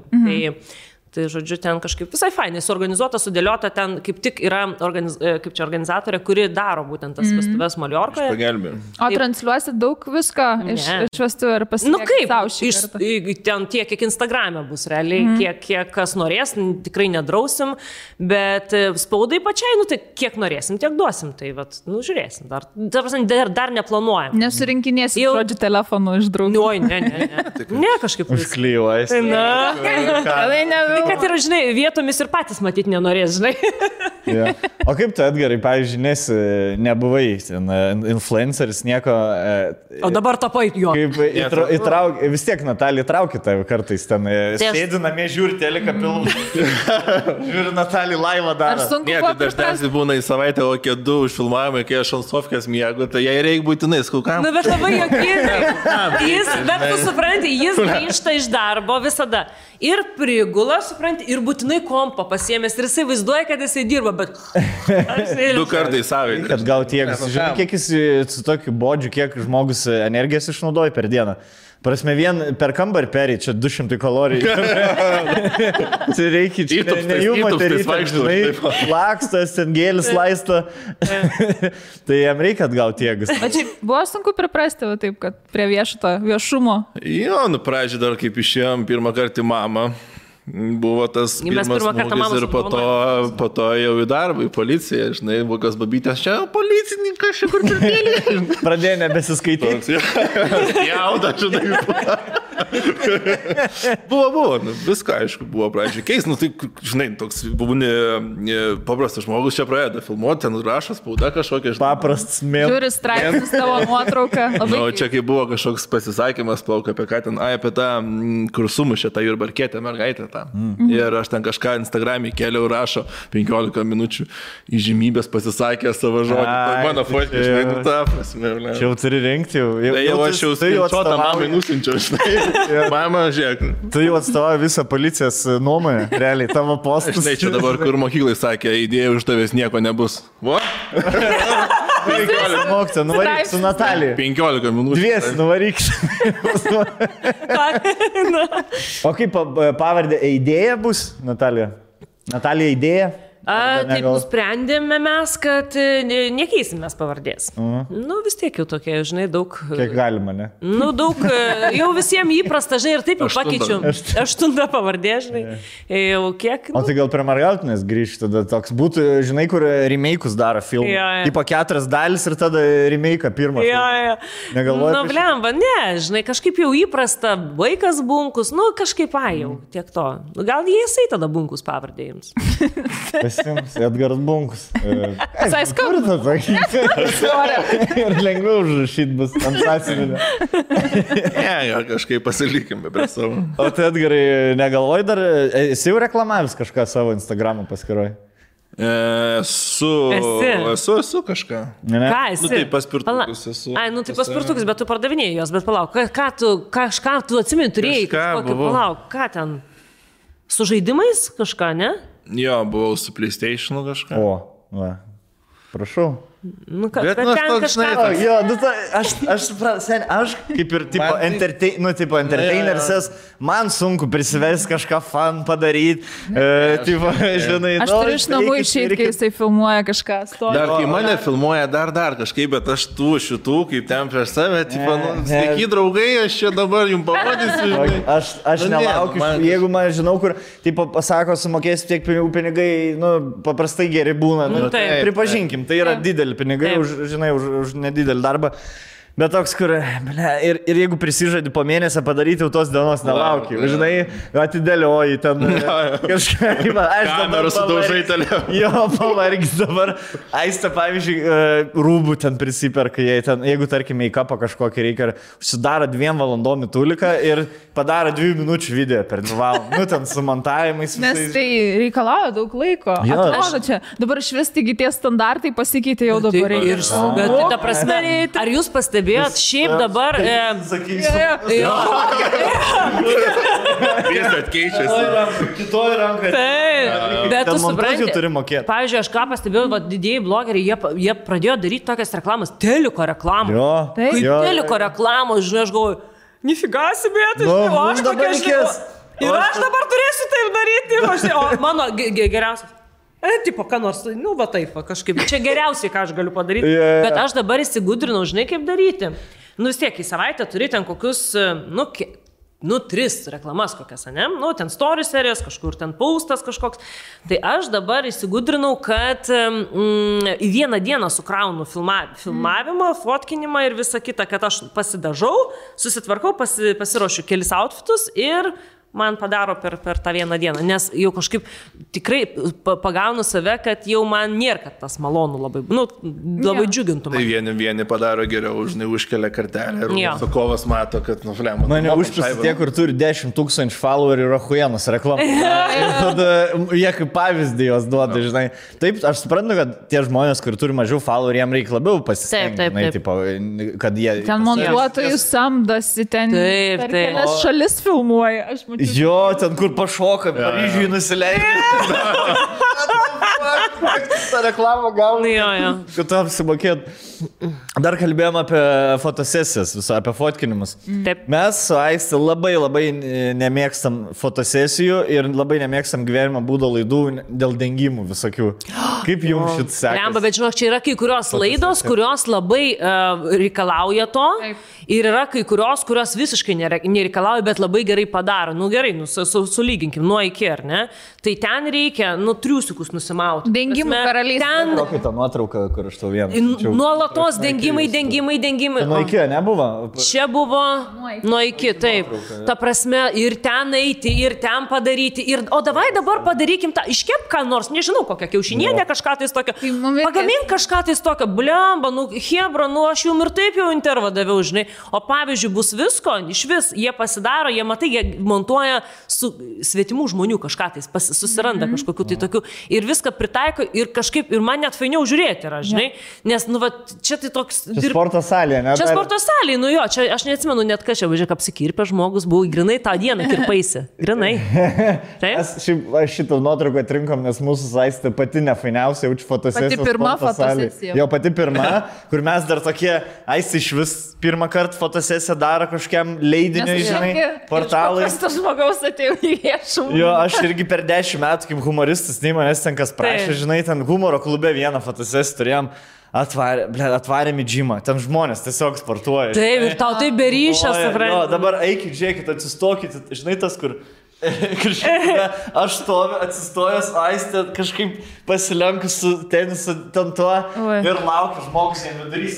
Tai, žodžiu, ten kažkaip visai fainai suorganizuota, sudėliota, ten kaip tik yra organizatorė, kuri daro būtent tas vestuvės Maliorkoje. Pagelbė. O transliuosit daug visko iš vestuvų ir pasiekti savo šį kartą? Ten tiek, kiek Instagrame bus realiai, kiek kas norės, tikrai nedrausim, bet spaudai pačiai, tai kiek norėsim, tiek duosim, tai žiūrėsim, dar neplanuojam. Nesurinkinėsim žodžių telefonų iš draugų. Ne, kažkaip. Užklijuojas. Kad yra, žinai, vietomis ir patys matyti nenorės, žinai. Ja. O kaip tu, Edgarai, pavyzdžiui, nebuvai influenceris, nieko... O dabar tapai jo. Kaip vis tiek Natalija traukia tave kartais ten. Sėdi namie, žiūri teleką pilną. Žiūri Natalija laivą daro. Ne, tai dažniausiai būna į savaitę, o kiek 2 užfilmavimai, kai aš ant sofkės miegu, tai jai reikia būtinai skaukam. Bet labai jokingai. Bet tu supranti, jis grįžta iš darbo visada. Ir prigula, supranti, ir būtinai kompą pasiėmęs. Ir jisai vaizduoja, kad jisai dirba, bet... 2 kartai savaitę. Kad gal tiek, žinai, kiek jis su tokiu bodžiu, kiek žmogus energijos išnaudoja per dieną. Prasme, vien per kambarį perį, čia 200 kalorijų. Tai reikia, čia ne jų moterytė, žinai, lakstas, ten gėlis laisto. Tai jam reikia atgauti jėgas. O čia buvo sunku priprasti, taip, kad prie viešumo. Jo, pradžiai dar kaip išėjom pirmą kartą į mamą. Buvo tas pirmas smūgis ir po to jau į darbą, į policiją, žinai, buvo kas babytės, čia policininkas, čia kur turtėlė. Pradėjo nebesiskaityti. Jauda, žinai. Buvo, viską, aišku, buvo pradžiai keis, tai, žinai, toks būni paprastas žmogus čia pradeda filmuoti, ten rašo spauda kažkokia. Paprastas mėl. Žiūri straipsnis tavo nuotrauką. Čia kai buvo kažkoks pasisakymas, plauk apie ką ten, apie tą, kur sumušė tą Jurbarkietę mergaitę. Ir aš ten kažką Instagram'e keliau rašo 15 minučių įžymybės pasisakė savo žodį. Mano fotkė, žinai, tą prasme. Čia jau turi rinkti jau. Jau aš jau skaičiuotą mamai nusinčiau, žinai. Mama, žiūrėk. Tu jau atstovauji visą policijos nuomonę, realiai, tavo postus. Žinai, čia dabar, kur mokyklai sakė, idėja už tavęs nieko nebus. Vo? 15 mokytą, nuvaryk su Natalija. 15 minučių. 2 nuvaryk. O kaip pavardė idėja bus, Natalija? Natalija idėja? Taip nusprendėme mes, kad nekeisim mes pavardės. Vis tiek jau tokie, žinai, daug... Kiek galima, ne? Daug, jau visiems įprasta, žinai, ir taip jau pakeičiu. 8 pavardė, žinai. Jau kiek... O tai gal prie Margautinės grįžti, tada toks būtų, žinai, kur remake'us daro filmų. Tipo 4 dalis ir tada remake'ą pirmą. Negalvoju. Blemba, ne, žinai, kažkaip jau įprasta, vaikas Bunkus, kažkaip jau, tiek to. Gal jisai tada Bunkus pavardė jums. Edgaras Bunkus. Visai skauda. Ir lengviau užrašyti bus ant sąsiuvinio. Ne, kažkaip pasilikime prie savo. O tai Edgarai, negalvoji dar, esi jau reklamavęs kažką savo Instagramo paskyroj? Esu kažką. Ką esi? Tai paspirtukus esu. Tai paspirtukus, bet tu pardavinėjai jos, bet palauk, kažką tu atsimeni turėjai, palauk, ką ten? Su žaidimais kažką, ne? Jo, buvau su PlayStation'u kažką. O, va. Prašau. Nu, kad Bet, ten nu, aš toks, kažką... žinai, Jo, nu, aš suprantu, aš kaip ir tipo, entertaineris, man sunku prisivesti kažką fan padaryti, žinai, Aš turiu iš namų išeiti, kai jisai filmuoja kažką. Dar kai mane filmuoja, dar kažkaip, bet aš tų šitų, kaip ten prieš save, tipo, sveiki draugai, aš čia dabar jums parodysiu. Žinai. Aš nelaukiu, jeigu man žinau, kur, tipo, pasako, sumokėsiu tiek pinigų, nu, paprastai geri būna. Nu, pripažinkim, tai yra dideli pinigai, už nedidelį darbą. Bet toks, kur, ir jeigu prisižadi po mėnesio padaryti, jau tos dienos nelauki. Žinai, atidėlioji ten kažką. Aš dabar sudaužai toliau. Jo, pavargis dabar. Aistė, pavyzdžiui, rūbų ten prisiperka, jeigu, tarkim, make-upą kažkokį reikia, užsidaro 2 valandom tuliką ir padaro 2 minučių video per 2 valandą. Nu, ten su montavimais. Nes tai reikalauja daug laiko. Atrodo čia, dabar švesti tie standartai pasikeitė jau dabar. Bet ta prasme, ar jūs pastebėjote? Šiaip dabar... Sakysiu. Visat keičiasi. Kitoj rankai. Taip, bet tu supranti. Turi mokėti. Pavyzdžiui, aš ką pastebėjau, didieji blogeriai, jie pradėjo daryti tokias reklamas, teliko reklamą. Jo. Kaip teliko reklamos, žinai, aš galvoju, nifigasi, bet o aš tokia žinau. Ir aš dabar turėsiu taip daryti. O mano geriausias. Tipo, ką nors, nu, va taip, kažkaip, čia geriausiai, ką aš galiu padaryti, bet aš dabar įsigudrinau, žinai, kaip daryti. Nu, vis tiek, į savaitę turi ten kokius, nu, 3 reklamas kokias, ne? Nu, ten story serijas, kažkur ten postas kažkoks. Tai aš dabar įsigudrinau, kad į vieną dieną sukraunu filmavimą, fotkinimą ir visą kitą, kad aš pasidažau, susitvarkau, pasiruošiu kelis outfitus ir... man padaro per tą vieną dieną, nes jau kažkaip tikrai pagaunu save, kad jau man nėra, kad tas malonu labai, nu, labai džiugintų man. Tai vieni padaro geriau, žinai, užkelia kartelę ir užsakovas mato, kad nuflemo. Mane užpisa tie, kur turi 10 000 followerių ir Rahuienos reklamą. Ir tada jie kaip pavyzdį jos duoda, žinai. Taip, aš suprantu, kad tie žmonės, kur turi mažiau followerių, jiems reikia labiau pasistengti, kad jie... Ten montuotojus samdosi, ten per kelias šalis filmuoja, aš mačiau. Jo, ten kur pašoka, Paryžiui nusileidžia. Ta reklama gauna. Jo. Kad tu apsimokėt. Dar kalbėjom apie fotosesijas, apie fotkinimus. Taip. Mes su Aiste labai nemėgstam fotosesijų ir labai nemėgstam gyvenimo būdo laidų dėl dengimų visokių. Kaip jums šit sekasi? Lemba, bet žinok, čia yra kai kurios laidos, kurios labai reikalauja to. Taip. Ir yra kai kurios visiškai nereikalauja, bet labai gerai padaro. Nu gerai, sulyginkim, nuo iki, ar ne? Tai ten reikia, triusikus nusimauti. Dengimų karalystė. Kokia ta nuotrauka, kur aš tau vieną? Nuolatos dengimai. Nuo iki, nebuvo? Čia buvo nuo iki, taip. Ta prasme, ir ten eiti, ir ten padaryti. O dabar padarykim tą, iškep ką nors, nežinau, kokią kiaušinienę, kažką tais tokio. Pagamink kažką tais tokio, blemba, hebra, aš jums ir taip jau intervą daviau, žinai. O pavyzdžiui, bus visko, iš vis, jie pasidaro, jie matai, jie montuoja su svetimų žmonių kažką tais, susiranda kažkokiu tai tokiu ir viską pritaiko ir kažkaip, ir man net fainiau žiūrėti yra, žinai, nes, čia tai toks... Čia sporto salė, ne? Čia sporto salė, čia aš neatsimenu net ką čia, važiuok, apsikirpę žmogus, buvau grinai tą dieną kirpaisi, grinai. Aš šitą nuotrauką atrinkom, nes mūsų Aistė pati nefainiausia, jaučiu fotosesija. Pati pirma fotosesija. Jo, pati pirma, kur mes dar tokie, Aistė iš vis pirmą kartą fotosesiją daro kažkiam leidiniui, žinai, portalai. Aš tas žmogaus atėjau į viešumą. Jo, aš irgi per 10 metų kaip humoristas, nei manęs ten kas prašė, žinai, ten humoro klube vieną fotosesiją turėjom, atvarėm į džimą, ten žmonės tiesiog sportuoja. Taip, ir tau tai beryšia, suprantu. Jo, dabar eikit, žiūrėkit, atsistokit, žinai, tas, kur... Aš stoviu, atsistojęs, Aistė kažkaip pasilenkus su tenisu ten tuo ir laukiu žmogus jam vidarys.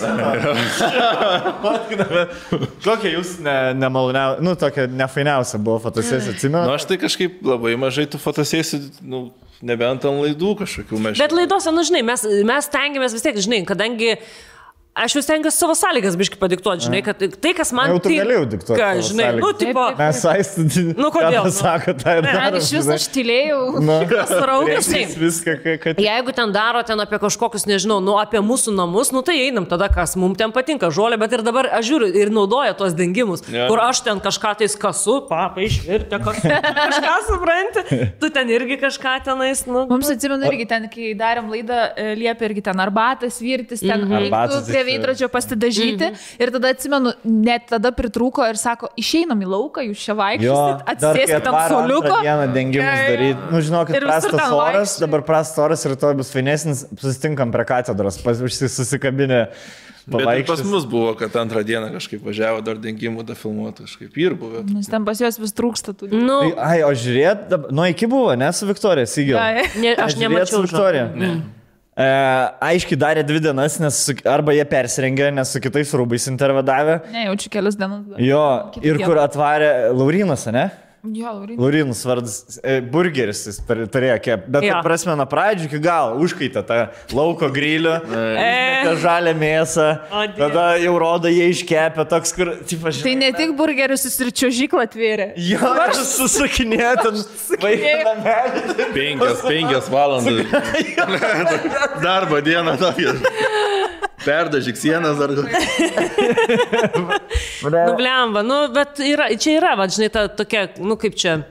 Kokia jūs nemaloniausia, tokia nefainiausia buvo fotosesija, atsimenu? Aš tai kažkaip labai mažai tų fotosesijų, nebent ant laidų kažkokių mes. Bet laidose, žinai, mes tengiamės vis tiek, žinai, kadangi Aš vis tengiuosi savo sąlygas biškai padiktuoti, žinai, kad tai, kas man... Jau tu galėjau diktuoti Ką, savo žinai, sąlygas. tipo... Mes aistinti, kodėl? Sako, tai ir Ar darom. iš vis aš tylėjau? Sraugas, Viską, kad... Jeigu ten daro ten apie kažkokius, nežinau, apie mūsų namus, tai einam tada, kas mums ten patinka, žolė, bet ir dabar aš žiūriu ir naudoja tos dengimus, kur aš ten kažką tais kasu, papa išvirtė, kažką supranti, tu ten irgi kažką tenais, Mums atsimenu irgi ten, kai darėm laidą, liepė irgi ten arbatas virtis, ten reiktų prie veidrodžio pasidažyti. Ir tada atsimenu, net tada pritrūko ir sako, išeinam į lauką, jūs čia vaikščiosit, atsėskit ant soliuko. Vieną dengimus daryti. Nu, žinokit, prastas oras, dabar prastas oras ir to bus fainesnis, susitinkam prie katedros, susikabinę. Bet pas mus buvo, kad antrą dieną kažkaip važiavo dar dengimų, da filmuoti kažkaip ir buvo. Nes ten pas juos vis trūksta tų. Ai, o žiūrėt, iki buvo, ne su Viktorija, Sigil. Aš nemačiau Viktoriją. Aiškiai darė 2 dienas, nes arba jie persirengė, nes su kitais rūbais intervedavė. Ne, jaučiu kelias dienas. Jo, ir kur atvarė Laurinas, ne? Jo, Laurinas vardas, burgeris jis turėjo kep. Bet prasme, nuo pradžių iki galo užkaitė tą lauko grilių, tą žalę mėsą, tada jau rodo, jie iškepė toks, kur... Tai ne tik burgerius, jis ir čiuožyklą atvėrė. Jo, aš susakinėjau ten vaiką namelį. 5 valandas. Darbo dieną tokia. Perdažyk sienas dar. Blemba, bet čia yra, žinai, ta tokia, kaip čia,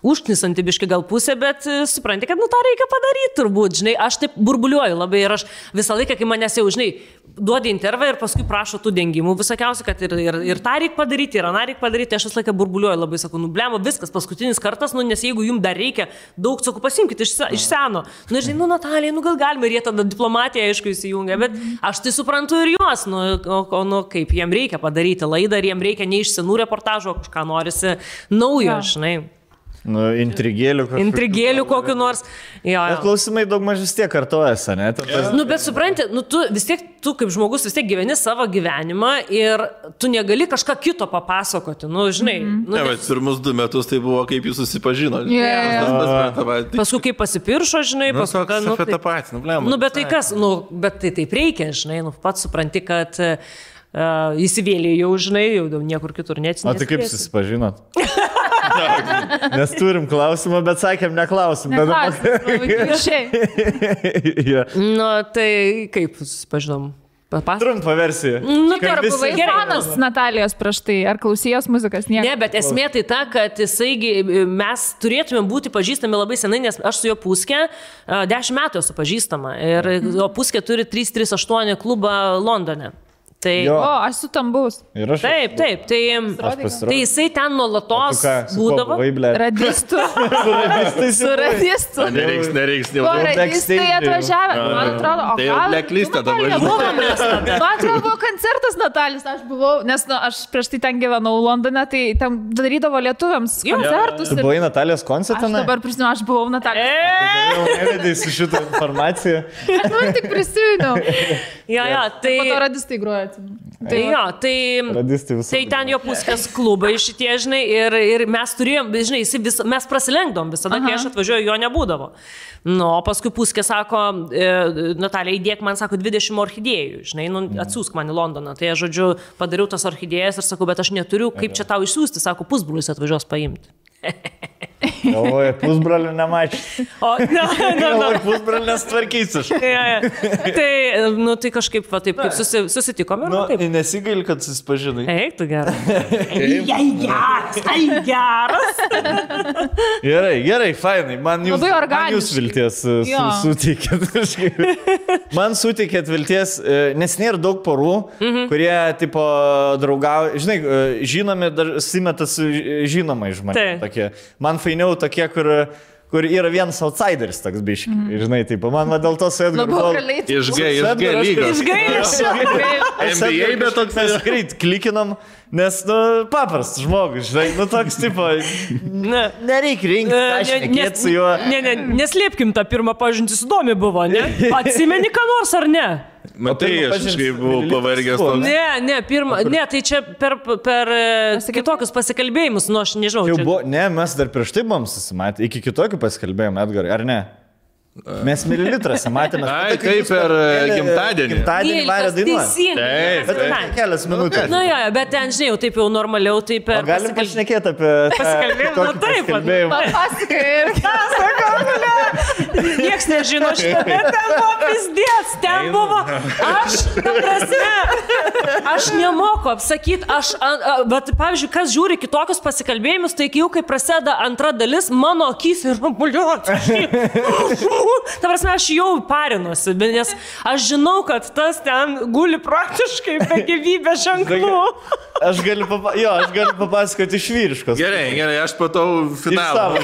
užknisanti biški gal pusė, bet supranti, kad tą reikia padaryti turbūt, žinai, aš taip burbuliuoju labai ir aš visą laiką, kai manęs jau, žinai, duodi intervą ir paskui prašo tų dengimų visokiausiai, kad ir tą reikia padaryti, ir aną reikia padaryti, aš visą laiką burbuliuoju labai, sakau, blemba, viskas, paskutinis kartas, nes jeigu jums dar reikia daug, sakau, pasimkite iš seno, žinai, Natalija, gal galime, ir jie tada diplomatiją, aišku, įsijungia, bet aš tai suprantu ir juos, kaip jiem reikia padaryti laidą, ir jiem reikia ne iš senų reportažų, kažką norisi naujo, žinai. Intrigėlių kokiu nors. Bet klausimai daug mažis tiek kartojasi, ne? Bet supranti, tu kaip žmogus vis tiek gyveni savo gyvenimą ir tu negali kažką kito papasakoti, žinai. Bet pirmus 2 metus tai buvo, kaip jūs susipažino. Paskui kaip pasipiršo, žinai, paskui... Apie tą patį, bet tai kas, bet tai taip reikia, žinai, pats supranti, kad įsivėlė jau, žinai, jau niekur kitur neatsinės. O tai kaip susipažinot? Nes turim klausimą, bet sakėm neklausim. Tai kaip susipažinom? Trumpa versija. Ar buvai fanas Natalijos prieš tai? Ar klausijos muzikas? Ne, bet esmė tai ta, kad mes turėtume būti pažįstami labai senai, nes aš su jo Puske 10 metų esu pažįstama. Ir jo Puske turi 338 klubą Londone. Aš su tam bus. Taip. Tai jisai ten nuolatos būdavo. Radistų. Su radistų. Nereiks. Radistai atvažiavę. Man atrodo, tai jau blacklistą dabar. Man atrodo, buvo koncertas Natalijos, aš buvau, nes aš prieš tai ten gyvenau Londone, tai ten darydavo lietuviams koncertus. Tu buvai Natalijos koncertą? Aš dabar prisimenu, aš buvau Natalijos. Jau nevedai su šitą informaciją. Aš tik prisimenu. Tai... Po to radistai groja. Tai ten jo Puskės klubai šitie, žinai, ir mes turėjom, žinai, mes prasilenkdom visada, kai aš atvažiuoju, jo nebūdavo. O paskui Puskė sako, Natalija, įdėk man, sako, 20 orchidėjų, žinai, atsiųsk man į Londoną. Tai aš, žodžiu, padariau tas orchidėjas ir sakau, bet aš neturiu, kaip čia tau išsiųsti, sako, pusbrolis atvažiuos paimti. Galvoju, pusbrolių nemačiau. Pusbrolių nestvarkysiu. Tai kažkaip, taip, kaip susitikome. Nesigaili, kad susipažinai. Eik, tu geras. Geras. Gerai, fainai. Man jūs vilties suteikėt. Man suteikėt vilties, nes nėra daug porų, kurie, tipo, draugauja. Žinai, žinomi, dar simeta su žinomai žmonės. Man fainiau tokie, kur yra vienas outsideris toks biški. Žinai, taip, man dėl to su Edgaru... Išgai lygos. NBA, bet toks greit klikinam, nes, paprastas žmogus, žinai, toks, tipo, nereikia rinkti, aš nekėt su juo. Neslėpkim tą pirmą pažintį, įdomi buvo, ne? Atsimeni ką nors ar ne? Matai, aš kažkaip buvau pavargęs. Ne, tai čia per kitokius pasikalbėjimus, aš nežinau. Ne, mes dar prieš tai buvom susimatę, iki kitokių pasikalbėjimų, Edgarai, ar ne? Mes mililitrose matėme. Ai, tai per gimtadienį. Gimtadienį varė dainuoti. Taip, Bet kelias minutės. Na jo, bet ten, žinai, jau taip jau normaliau, taip per... Galim pašnekėti apie... Pasikalbėjimą, taip. Pasakai ir Niekas nežino šitą, bet ten buvo pizdės, ten buvo... Aš nemoku apsakyti, bet, pavyzdžiui, kas žiūri kitokius pasikalbėjimus, tai jau kai prasideda antra dalis, mano akys ir ta prasme, aš jau parinuosi, nes aš žinau, kad tas ten guli praktiškai be gyvybės ženklų. Aš galiu papasakoti iš vyriškos. Gerai, aš patau finalą.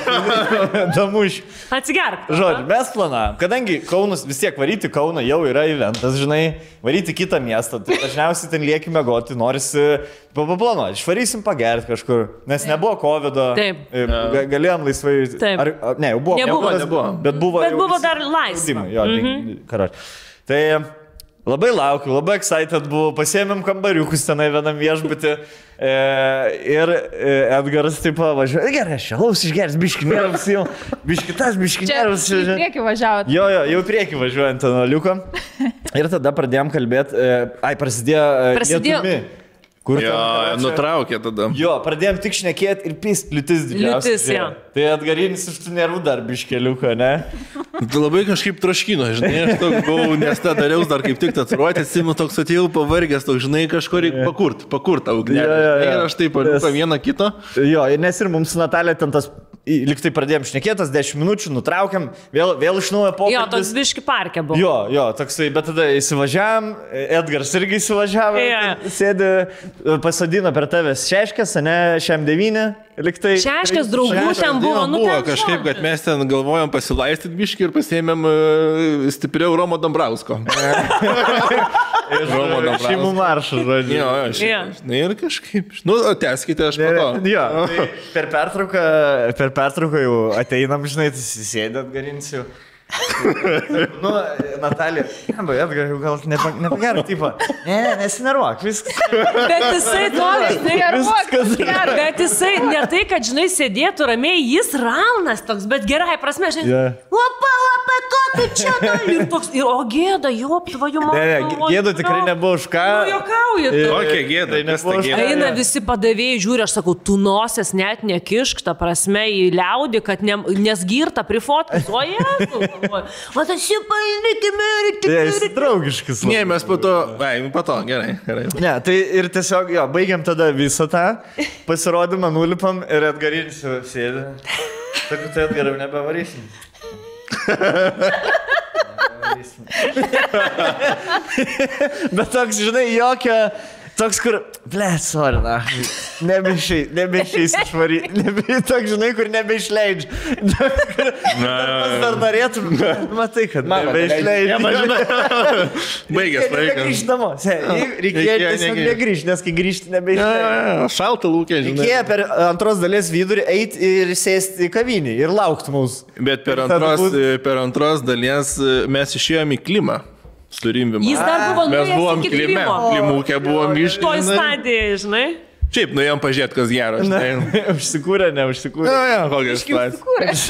Damuš. Atsigerk. Žodžiu, mes planavom, kadangi Kaunas vis tiek varyti Kauną jau yra eventas, žinai, varyti kitą miestą, tai dažniausiai ten lieki mėgoti, norisi paplanuoti, išvarysim pagerti kažkur, nes nebuvo COVID-o, galėjom laisvai, ne, jau buvo, bet buvo dar laisva. Tai labai laukiu, labai excited buvau, pasiėmėm kambariukus tenai vienam viešbutį ir Edgaras taip važiuoja, gerai, aš alaus išgeris, biškinėras jau, biškinėras. Čia į priekį važiavot. Jo, jau į priekį važiuojant ant liuko. Ir tada pradėjom kalbėti, prasidėjo Kur jo, nutraukė tada. Jo, pradėjom tik šnekėti ir pist, liūtis didžiausia. Liūtis, jo. Tai Edgarinis iš tų nervų dar biškeliuko, ne? Tu labai kažkaip troškino, žinai, aš toks buvau, nes tą dariaus dar kaip tik tatuiruotę, atsimenu, toks atėjau pavargęs, toks, žinai, kažko reikia pakurt tą ugnelę. Ir aš taip paliuką vieną kitą. Jo, nes ir mums su Natalija ten tas, liktai pradėjom šnekėtas, 10 minučių, nutraukiam, vėl iš naujo pokalbis. Jo, toks biški parke buvo. Jo, toksai, bet tada įsivažiavam, Edgaras irgi įsivažiavo, sėdi, pasadino per tavęs šeškės, ne, šiam 9, liktai. Šeškės draugų ten buvo, buvo kažkaip, kad mes ten galvojom pasilaistyti biškį ir pasiėmėm stipriau Romo Dambrausko. Romo Dambrausko. Šeimų maršą, žodžiu. Jo, ir kažkaip, tęskite, aš matau. Jo, per pertrauką jau ateinam, žinai, sėdėt garinsiu. Natalija, Edgar, gal nepagerą, tipo, nesinervuok, viskas. Bet jisai toks, bet jisai ne tai, kad, žinai, sėdėtų ramiai, jis raunas toks, bet gerai prasme, žinai, lapa, tu čia, ir toks, o gėda, tvojų mano. Gėda tikrai nebuvo už ką. Jokauji tu. Kokia gėda, nes ta gėda. Eina visi padavėjai, žiūri, aš sakau, tu nosės net nekišk, ta prasme, į liaudį, kad nes girta prifotkus, o jėzu. O tas jau palikime ir draugiškas. Ne, mes po to, gerai. Ne, tai ir tiesiog, baigiam tada visą tą pasirodymą, nulipam ir Edgarinis sėdi. Sakau, tai Edgaram nebevarysim. Bet toks, žinai, toks, kur, sorry, nebeišeis išvaryti, toks, žinai, kur nebeišleidžia. Dar norėtum, matai, kad nebeišleidžia. Baigęs. Grįžt namo, reikėjo tiesiog negrįžti, nes kai grįžti nebeišleidžia. Šalta lūkė, žinai. Reikėjo per antros dalies vidurį eiti ir sėsti į kavinį ir laukti mūsų. Bet per antros dalies mes išėjom į klimą. Jis dar buvo nuėjęs iki klimo. Klimūkė buvom išėjęs. Toj stadijai, žinai. Šiaip, nuėjom pažiūrėti, kas gero, žinai. Užsikūrė, neužsikūrė. Kokias situacijos.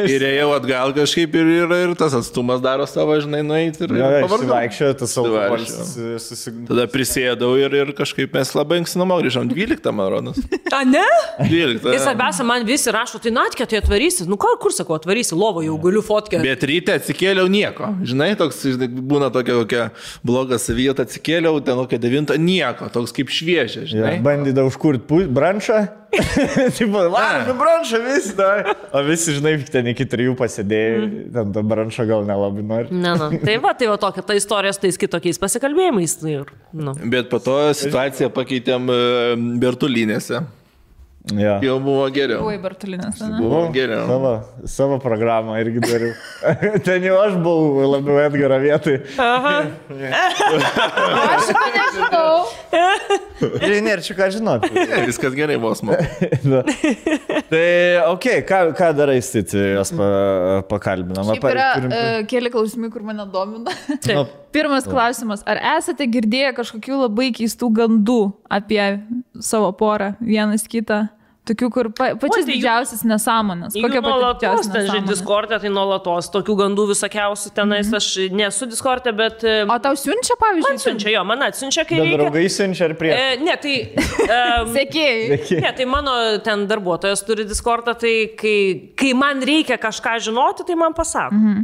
Ir ėjau atgal kažkaip ir tas atstumas daro savo, žinai, nueiti ir pavargau. Tas alkoholis. Tada prisėdau ir kažkaip mes labai anksti namo grįžom. 12, man rodos. A, ne? 12. Ir svarbiausia, man visi rašo, tai Natkė, tai atvarysi. Nu, kur sakau, atvarysi, lovo jau galiu fotkę. Bet ryte atsikėliau nieko. Žinai, toks būna kokia bloga savijata, atsikėliau, ten kokia 9, nieko, toks kaip šviežia, žinai. Bandydavau užkurti branšą. Tipo, varom branšą visi, o visi, žinai, ten iki 3 pasėdėjai, ten tą branšą gal nelabai nori. Tai va tokia ta istorija su tais kitokiais pasikalbėjimais. Bet po to situaciją pakeitėm Bertulinėse. Jau buvo geriau. Buvai Bertulinės, ne? Buvo geriau. Savo programą irgi dariau. Ten jau aš buvau labiau Edgaro vietoj. Aš to nežinau. Ir nėra čia ką žinoti. Viskas gerai, vos man. Tai, ką darai, Stiti, jos pakalbinam? Šiaip yra keli klausimai, kur mane domina. Pirmas klausimas, ar esate girdėję kažkokių labai keistų gandų apie savo porą, vienas kitą? Tokių, kur pačias didžiausias nesąmonės. Kokia pati didžiausia nesąmonė? Discord'e, tai nuolatos tokių gandų visokiausių tenais. Aš nesu Discord'e, bet... O tau siunčia, pavyzdžiui? Man siunčia, jo, man atsiunčia, kai reikia. Draugai siunčia ar prieš? Ne, tai... Sekėjai. Ne, tai mano ten darbuotojas turi Discord'ą, tai kai man reikia kažką žinoti, tai man pasako.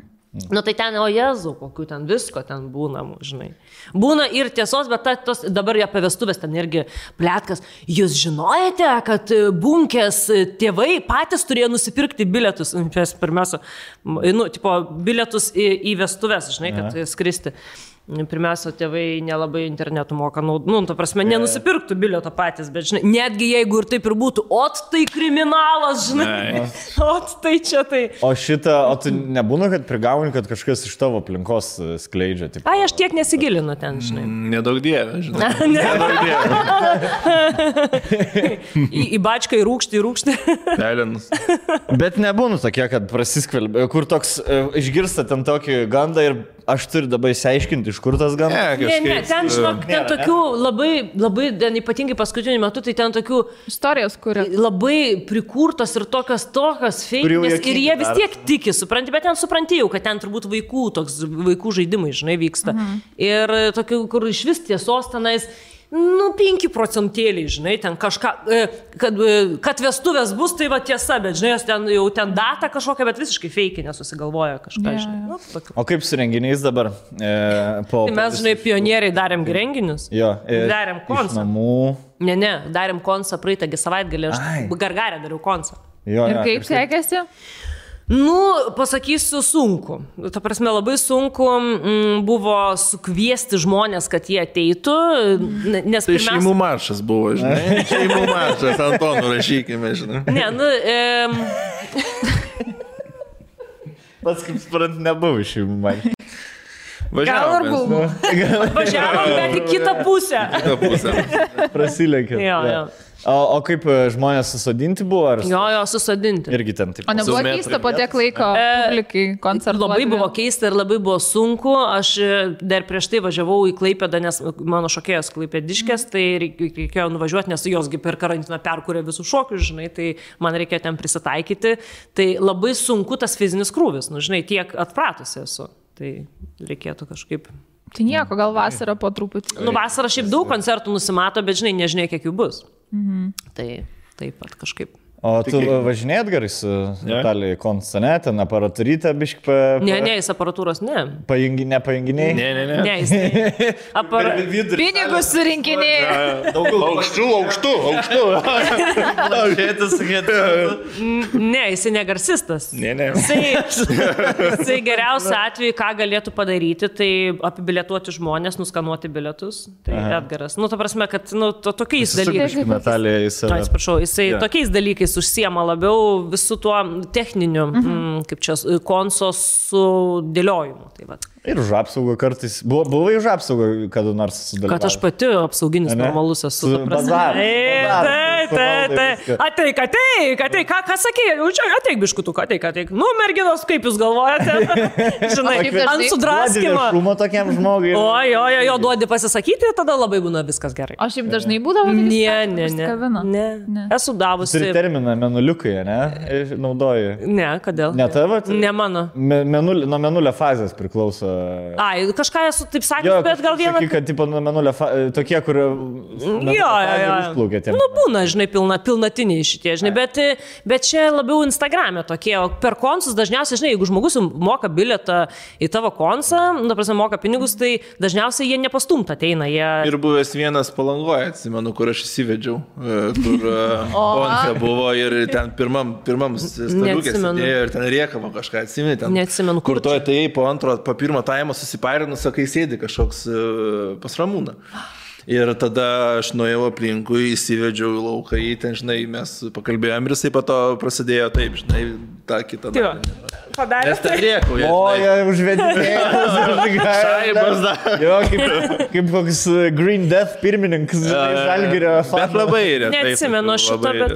Nu tai ten, o Jezu, kokių ten visko ten būna, žinai. Būna ir tiesos, bet dabar apie vestuvės ten irgi plėtkas. Jūs žinojate, kad Bunkės tėvai patys turėjo nusipirkti bilietus, pirmiausia, bilietus į vestuvės, žinai, kad skristi. Pirmiausia, tėvai nelabai internetu moka, ta prasme, nenusipirktų bilieto patys, bet, žinai, netgi jeigu ir taip ir būtų, tai kriminalas, žinai, tai čia tai. O tu nebūna, kad prigauni, kad kažkas iš tavo aplinkos skleidžia? Ai, aš tiek nesigilinu ten, žinai. Nedaug dievė, žinai. Nedaug dievė. Į bačką, į rūkštį. Pelinus. Bet nebūna tokie, kad prasiskvelbė, kur toks išgirsta ten tokį gandą ir aš turiu dabar įsiaiškinti, iš kur tas gandas. Ne, ten, žinok, ten tokių labai, ypatingai paskutiniu metu, tai ten tokių istorijos, kuria labai prikurtos ir tokios feikinės ir jie vis tiek tiki, supranti, bet ten supranti jau, kad ten turbūt vaikų žaidimai, žinai, vyksta. Ir tokių, kur iš vis tiesos tenais, 5 procentėliai, žinai, ten kažką, kad vestuvės bus, tai va tiesa, bet, žinai, jau ten data kažkokia, bet visiškai feikinė susigalvoja kažką, žinai. O kaip su renginiais dabar? Tai mes, žinai, pionieriai darėm renginius. Jo. Darėm konsą. Ne, darėm konsą praeitągi savaitgalį, aš Gargarę dariau konsą. Ir kaip sekėsi? Pasakysiu, sunku. Ta prasme, labai sunku buvo sukviesti žmonės, kad jie ateitų, nes tai šeimų maršas buvo, žinai. Šeimų maršas, Antonų rašykime, žinai. Ne, Pats kaip sprant, nebuvo šeimų maršas. Važiavom, bet į kitą pusę. Prasilenkė. Jo. O kaip žmonės susodinti buvo? Jo, susodinti. Irgi ten taip. O nebuvo keista po tiek laiko publikai koncertuoti? Labai buvo keista ir labai buvo sunku. Aš dar prieš tai važiavau į Klaipėdą, nes mano šokėjas klaipėdiškės, tai reikėjo nuvažiuoti, nes josgi per karantiną perkūrė visus šokius, žinai, tai man reikėjo ten prisitaikyti. Tai labai sunku tas fizinis krūvis, žinai, tiek atpratusi esu. Tai reikėtų kažkaip... Tai nieko, gal vasarą po truputį. Vasarą šiaip daug koncertų nusimato, bet žinai kiek jų bus. Tai taip pat kažkaip. O tu važinėjat gerai su Natalija Konstane, ten aparatūrytę biškį Ne, jis aparatūros ne. Nepajunginiai? Ne, jis pinigus surinkinėjai. Aukštų. Ne, jis negarsistas. Ne. Jisai geriausiu atveju, ką galėtų padaryti, tai apibilietuoti žmonės, nuskanuoti bilietus. Tai Edgaras. Ta prasme, kad tokiais dalykais. Natalija jisai tokiais dalykais užsiema labiau visų tuo techniniu, kaip čia, konsos sudėliojimu. Tai va. Ir už apsaugą kartais. Buvai už apsaugą kada nors sudalyvauti? Kad aš pati apsauginis normalus esu. Ateik, ką sakė? Ateik biškutuk, ateik. Merginos, kaip jūs galvojate? Žinai, ant sudraskimo. Šumo tokiam žmogui. Jo, duodi pasisakyti, tada labai būna viskas gerai. O šiaip dažnai būdavo? Ne. Esu davusi. Turi terminą menuliukai, ne? Naudoji. Ne, kodėl? Ne tavo? Ne mano. Nuo menulio fazės priklauso. Ai, kažką esu taip sakęs, bet gal vieną... Kad tipo nuo menulio tokie, kur... Jo. Būna, žinai, pilnatiniai šitie, žinai, bet čia labiau Instagram'e tokie, o per konsus dažniausiai, žinai, jeigu žmogus moka bilietą į tavo konsą, moka pinigus, tai dažniausiai jie nepastumta ateina. Ir buvęs vienas Palangoje, atsimenu, kur aš įsivedžiau, kur konfe buvo ir ten pirmam staliukės sėdėjo ir ten riekavo kažką, atsimeni, ten... Neatsimenu, kur to atėjai po pirmo taimo susiparinus, sakai, sėdi kažkoks pas Ramūną. Ir tada aš nuėjau aplinkui, įsivedžiau į lauką, ten, žinai, mes pakalbėjom ir jisai po to prasidėjo taip, žinai, tą kitą dalį. padarė. Nes ten rėkauja. O, jie užvedinėjai. Šaibas dar. Jo, kaip koks Green Death pirmininkas Žalgirio Bet fanas. labai retai. Neatsimenu šito, bet...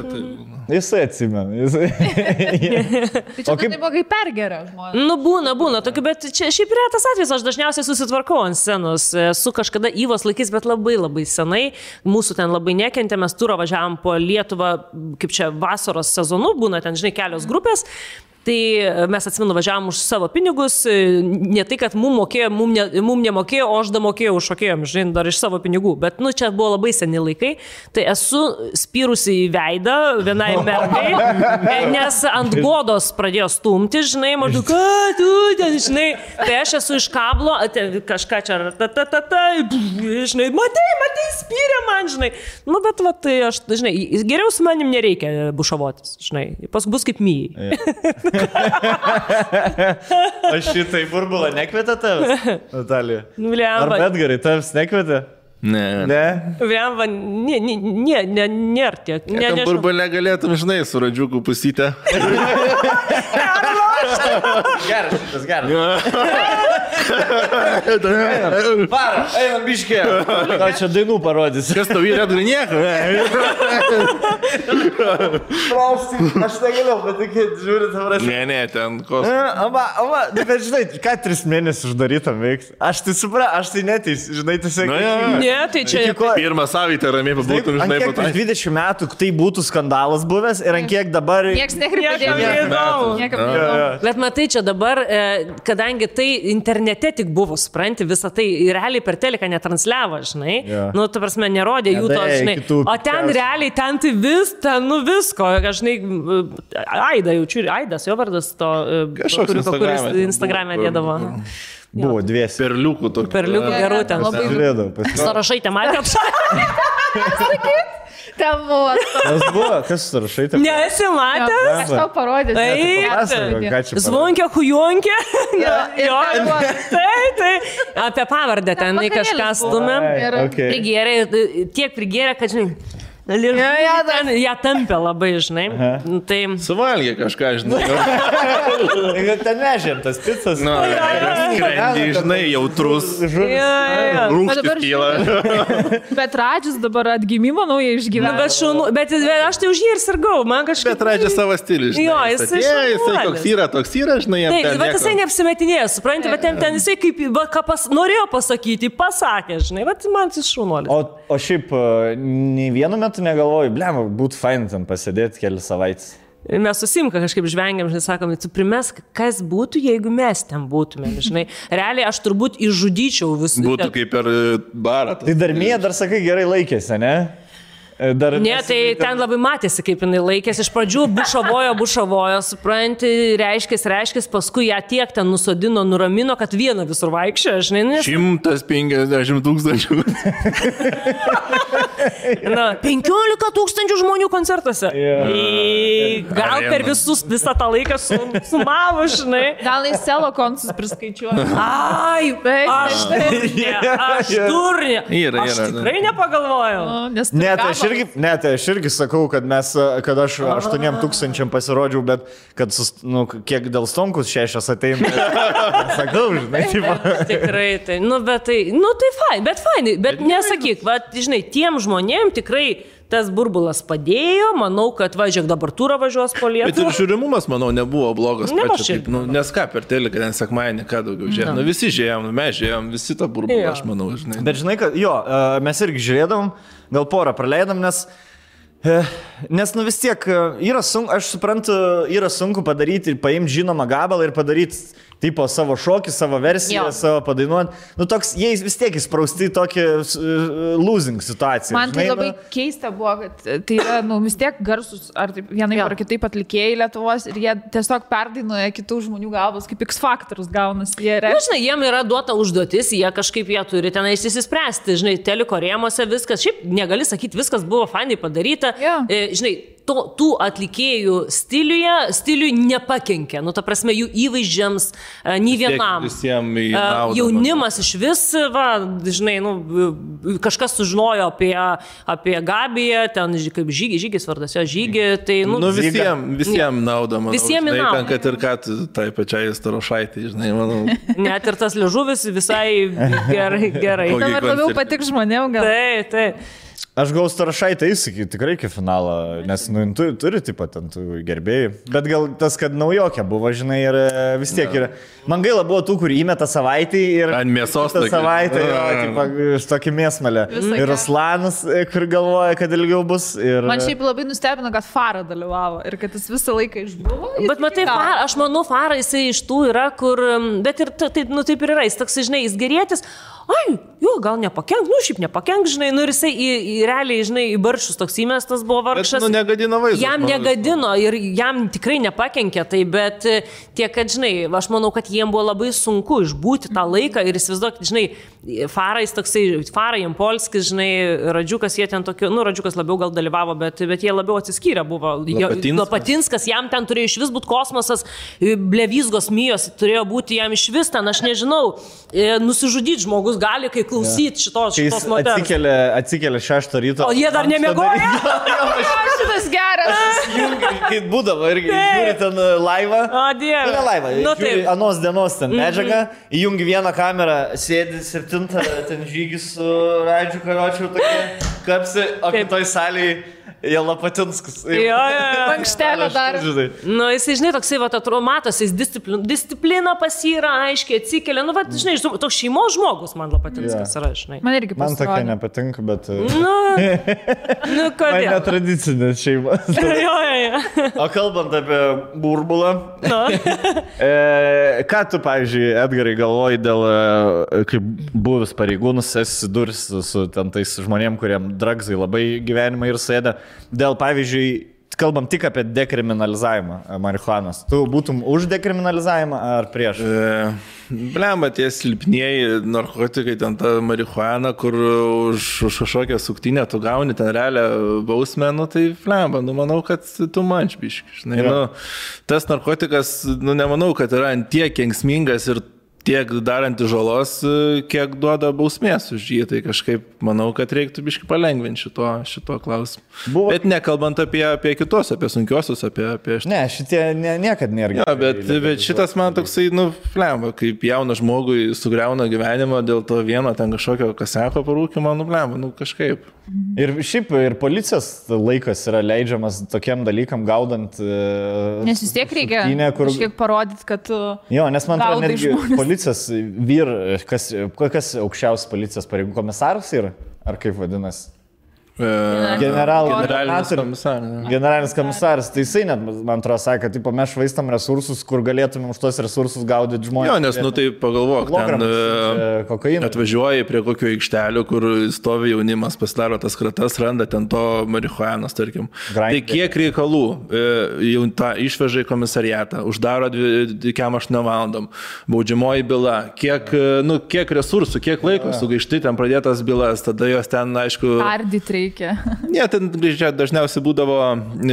Jisai atsimena. Tai čia kaip buvo, kaip pergeria žmonės. Nu, būna tokių, bet čia šiaip yra tas atvejis, aš dažniausiai susitvarkau ant scenos. Su kažkada Įvos laikais, bet labai senai. Mūsų ten labai nekentė, mes turą važiavom po Lietuvą, kaip čia vasaros sezonu, būna ten, žinai, kelios grupės. Tai mes atsimenu, važiavom už savo pinigus, ne tai, kad mum nemokėjo, o aš damokėjau už šokėjom, žinai, dar iš savo pinigų. Bet, nu, čia buvo labai seni laikai. Tai esu spyrusi į veidą vienai mergai, nes ant godos pradėjo stumti, žinai, maždaug, ką tu ten, žinai. Tai aš esu iš kablo, kažką čia, žinai, matai, spyrė man, žinai. Nu, bet, va, tai aš, žinai, geriau su manim nereikia bušavotis, žinai. Pas bus kaip myjai. Aš šitai burbulą nekvietė tavęs, Natalija? Ar Ar Edgarai tavęs nekvietė? Ne. Vemba, nėra tiek. Tam burbulė galėtum, žinai, su radžiukų pusytę. Geras, šitas geras. Varo, einam biškė. Ką čia dainų parodys? Kas tau yra Edgarai nieko? Aš negalėjau patikėti, žiūrėt, tavras. Ne, ten kos. Bet žinai, ką 3 mėnesius uždarytam veiks? Aš tai supra, aš tai neteis, žinai, tiesiog. Ne, tai čia... Pirmą savaitę ramiai pabūtum, žinai, po to. 20 metų tai būtų skandalas buvęs ir ant kiek dabar... Niekas nekreipė. Bet matai, čia dabar, kadangi tai internete tik buvo, supranti, visą tai realiai per teliką netransliavo, žinai. Nu, tu prasme, nerodė jų to, žinai. O ten realiai, ten tai visko, žinai, Aida jaučiu, Aidas, jo vardas to, kuris Instagram'e dėdavo. Buvo 2. Perliukų tokių. Perliukų gerų ten. Žiūrėdau. Sąrašai te matė apšai. Ten buvo. Kas buvo? Kas sąrašai te? Nesi matė? Aš tau parodysiu. Zvonkė, hujonkė. Tai. Apie pavardę ten kažką stumė. Prigėrė, tiek prigėrė, kad, žinai, ją tampė labai, žinai. Tai... Suvalgė kažką, žinai. Ten nežėm tas picas. Skrendį, žinai, jautrus. Rūkštis kyla. Bet Radžis dabar atgimimo naują išgyveno. Bet aš tai už jį ir sirgau. Bet Radžis savo stilių, žinai. Jo, jisai toks yra, žinai. Taip, bet jisai neapsimetinėjo, supranti, bet ten jisai kaip, ką norėjo pasakyti, pasakė, žinai, bet man jis šaunuolis. O šiaip, nei vienu metu negalvoju, blem, būtų fain ten pasėdėti kelias savaitės. Mes susimka kažkaip žvengiam, žinai, sakom, tu primesk, kas būtų, jeigu mes ten būtumėm, žinai. Realiai aš turbūt išžudyčiau visų. Būtų kaip per barą. Tai Darmija dar sakai gerai laikėsi, ne? Ne, tai ten labai matėsi, kaip jinai laikėsi. Iš pradžių bušavojo, supranti, reiškės, paskui ją tiek ten nusodino, nuramino, kad vieną visur vaikščiojo, žinai. 150 000. 15 000 žmonių koncertuose. Gal per visą tą laiką sumavo, žinai. Gal į selo koncertus priskaičiuoju. Ai, aš durnė. Aš tikrai nepagalvojau. Ne, tai aš irgi sakau, kad aš 8 000 pasirodžiau, bet kad, kiek dėl Stonkus 6 ateina. Sakau, žinai. Tikrai, tai, bet fainai, bet nesakyk, žinai, tiem žmonėm tikrai tas burbulas padėjo, manau, kad važiuok dabar turą važiuos po Lietuvą. Bet ir žiūrimumas, manau, nebuvo blogas. Nes ką per teliką, ten sekmadienį, ką daugiau žiūrėjom. Visi žiūrėjom, mes žiūrėjom, visi tą burbulą, aš manau, žinai. Bet žinai, kad mes irgi žiūrėdavom, gal porą praleidom, nes vis tiek aš suprantu, yra sunku padaryti ir paimti žinomą gabalą ir padaryti tipo savo šokį, savo versiją, savo padainuot. Toks, jie vis tiek įsprausti tokį losing situaciją. Man tai labai keista buvo, kad tai yra, vis tiek garsus, ar vienai ar kitaip atlikėjai Lietuvos ir jie tiesiog perdainuoja kitų žmonių galvas, kaip X Factorus gaunasi. Žinai, jiem yra duota užduotis, jie kažkaip jie turi tenais įsispręsti, žinai, teliko rėmose viskas, šiaip negali sakyti, viskas buvo fainai padaryta, žinai, tų atlikėjų stiliui nepakenkia. Nu, ta prasme, jų įvaizdžiams nei vienam. Visiems į naudą. Jaunimas iš vis, žinai, kažkas sužinojo apie Gabiją, ten kaip Žygis vardas, jo Žygį. Tai, visiems naudą, manau. Visiems į naudą. Kad ir ką tai pačiai Starošaitai, žinai, manau. Net ir tas liežuvis visai gerai. Dabar labiau patik žmonėm gal. Taip. Aš gal Starošaitą įsakysiu tikrai iki finalo, nes turi taip pat ant gerbėjų. Bet gal tas, kad naujokė buvo, žinai, ir vis tiek yra. Man gaila buvo tų, kur įmeta savaitį ir... Ant mėsos tokį. Savaitę, tokį mėsmalę. Ir Ruslanas, kur galvoja, kad ilgiau bus. Ir... Man šiaip labai nustebino, kad Farą dalyvavo ir kad jis visą laiką išbuvo. Bet matai, aš manau, Farą jisai iš tų yra, kur... Bet ir taip ir yra, jis toks, žinai, jis gerėtis. Ai, gal nepakenk, šiaip nepakenk, žinai, ir jisai realiai, žinai, į baršus toks įmestas buvo vargšas. Bet, negadino vaizdą. Jam negadino ir jam tikrai nepakenkė tai, bet tiek, kad, žinai, aš manau, kad jiem buvo labai sunku išbūti tą laiką ir įsivaizduokit, žinai, Farais toksai, Farai, Jampolskis, žinai, Radžiukas, jie ten tokiu, Radžiukas labiau gal dalyvavo, bet jie labiau atsiskyrę buvo. Lapatinskas, jam ten turėjo iš vis būti kosmosas, Blevizgos Mijos turėjo būti jam iš vis ten, aš nežinau, nusižudyti žmogus gali, kai klausyti šitos moters. Atsikėlė 6 ryto. O jie dar nemiegoja? Šitas geras. Kai būdavo irgi, žiūri ten laivą. O, Dieve. Ne laivą, žiūri anos dienos ten medžiagą, įjungi vieną kamerą, sėdi 7, ten Žygis su Radžiu Karočiu tokie kapsi, o kitoj salėje jie Lapatinskas. Mankštelio dar. Jisai, žinai, toksai, matosi, jis disciplina pasyra, aiškiai atsikelia. Žinai, toks šeimos žmogus man Lapatinskas yra, žinai. Man irgi pasirodė. Man tokia nepatinka, bet... Kodėl? Man netradicinės šeimas. O kalbant apie burbulą, ką tu, pavyzdžiui, Edgarai, galvoji dėl, kaip buvęs pareigūnus, esi duris su tais žmonėm, kuriem dragsai labai gyvenimą ir sėda. Dėl, pavyzdžiui, kalbam tik apie dekriminalizavimą marihuanos. Tu būtum už dekriminalizavimą ar prieš? Blemba, tie silpnieji narkotikai, ten ta marihuana, kur už kažkokią suktinę tu gauni ten realią bausmę, tai blemba, manau, kad tu mančbiški. Tas narkotikas, nemanau, kad yra ant tiek kenksmingas ir tiek darantį žalos, kiek duoda bausmės už jį, tai kažkaip manau, kad reiktų biškai palengvinti šito klausimu. Bet nekalbant apie kitos, apie sunkiosius, apie... Ne, šitie niekad nėra. Ja, bet šitas man toksai, flemba, kaip jaunas žmogui sugriauna gyvenimą dėl to vieno ten kažkokio kaseko parūkimo, flemba, kažkaip. Ir šiaip ir policijos laikas yra leidžiamas tokiem dalykam gaudant... Nes vis tiek reikia kažkiek parodyti, kad tu... Jo, nes man atrodo, netgi policijos kas aukščiausias policijos pareigų komisaras yra? Ar kaip vadinasi? Generalinis komisaras, tai jisai net, man atrodo, sakė, kad mes švaistam resursus, kur galėtume už tos resursus gaudyti žmonės. Jo, nes, tai pagalvok, ten atvažiuoji prie kokio aikštelio, kur stovi jaunimas, pasidaro tas kratas, randa ten to marihuanos, tarkim. Tai kiek reikalų jau tą išveža į komisariatą, uždaro 8 valandom, baudžiamoji byla, kiek resursų, kiek laiko sugaišti, ten pradėtas bylas, tada jos ten, aišku... Ardyti reikia. Ne, ten dažniausiai būdavo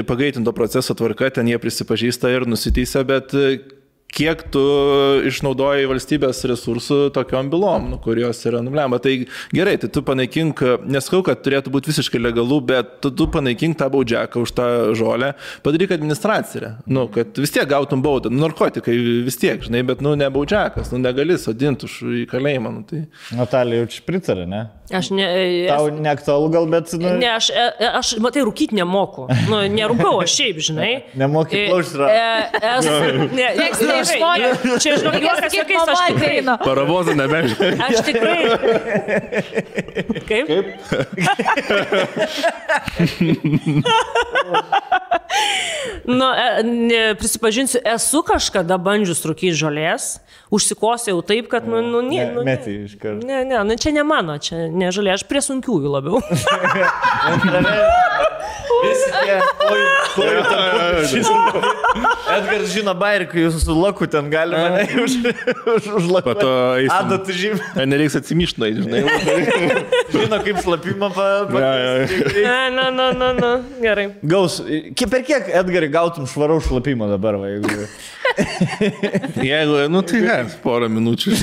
pagreitinto proceso tvarka, ten jie prisipažįsta ir nusiteisia, bet kiek tu išnaudoji valstybės resursų tokiom bylom, kurios yra nublemba. Tai gerai, tai tu panaikink, neskau, kad turėtų būti visiškai legalų, bet tu panaikink tą baudžiaką už tą žolę, padaryk administraciją, kad vis tiek gautum baudą, narkotikai vis tiek, žinai, bet ne baudžiakas, negali sodinti už į kalėjimą. Tai... Natalija jau čia pritarė, ne? Aš ne... Tau neaktualu gal, bet... Ne, aš matai, rūkyti nemoku. Nerūkau, aš šiaip, žinai. Nemoki plaušti. Čia, žinok, juokas jokiais, aš tikrai. Paravozą nebežinai. Aš tikrai. Kaip? Prisipažinsiu, esu kažkada bandžius rūkyti žolės, užsikosėjau taip, kad, Metį iš karto. Ne, čia ne mano, čia ne žolė, aš prie sunkiųjų labiau. tokie. Edgaras žino bairį, kai jūs su laku ten galima užlakuoti. Po to eisim. Adatų žymė. Nereiks atsimyšnai, žinai. Žino, kaip slapimą Gerai. Gaus. Per kiek, Edgarai, gautum švaraus šlapimo dabar, va, jeigu... Jeigu, nu tai ne, porą minučių.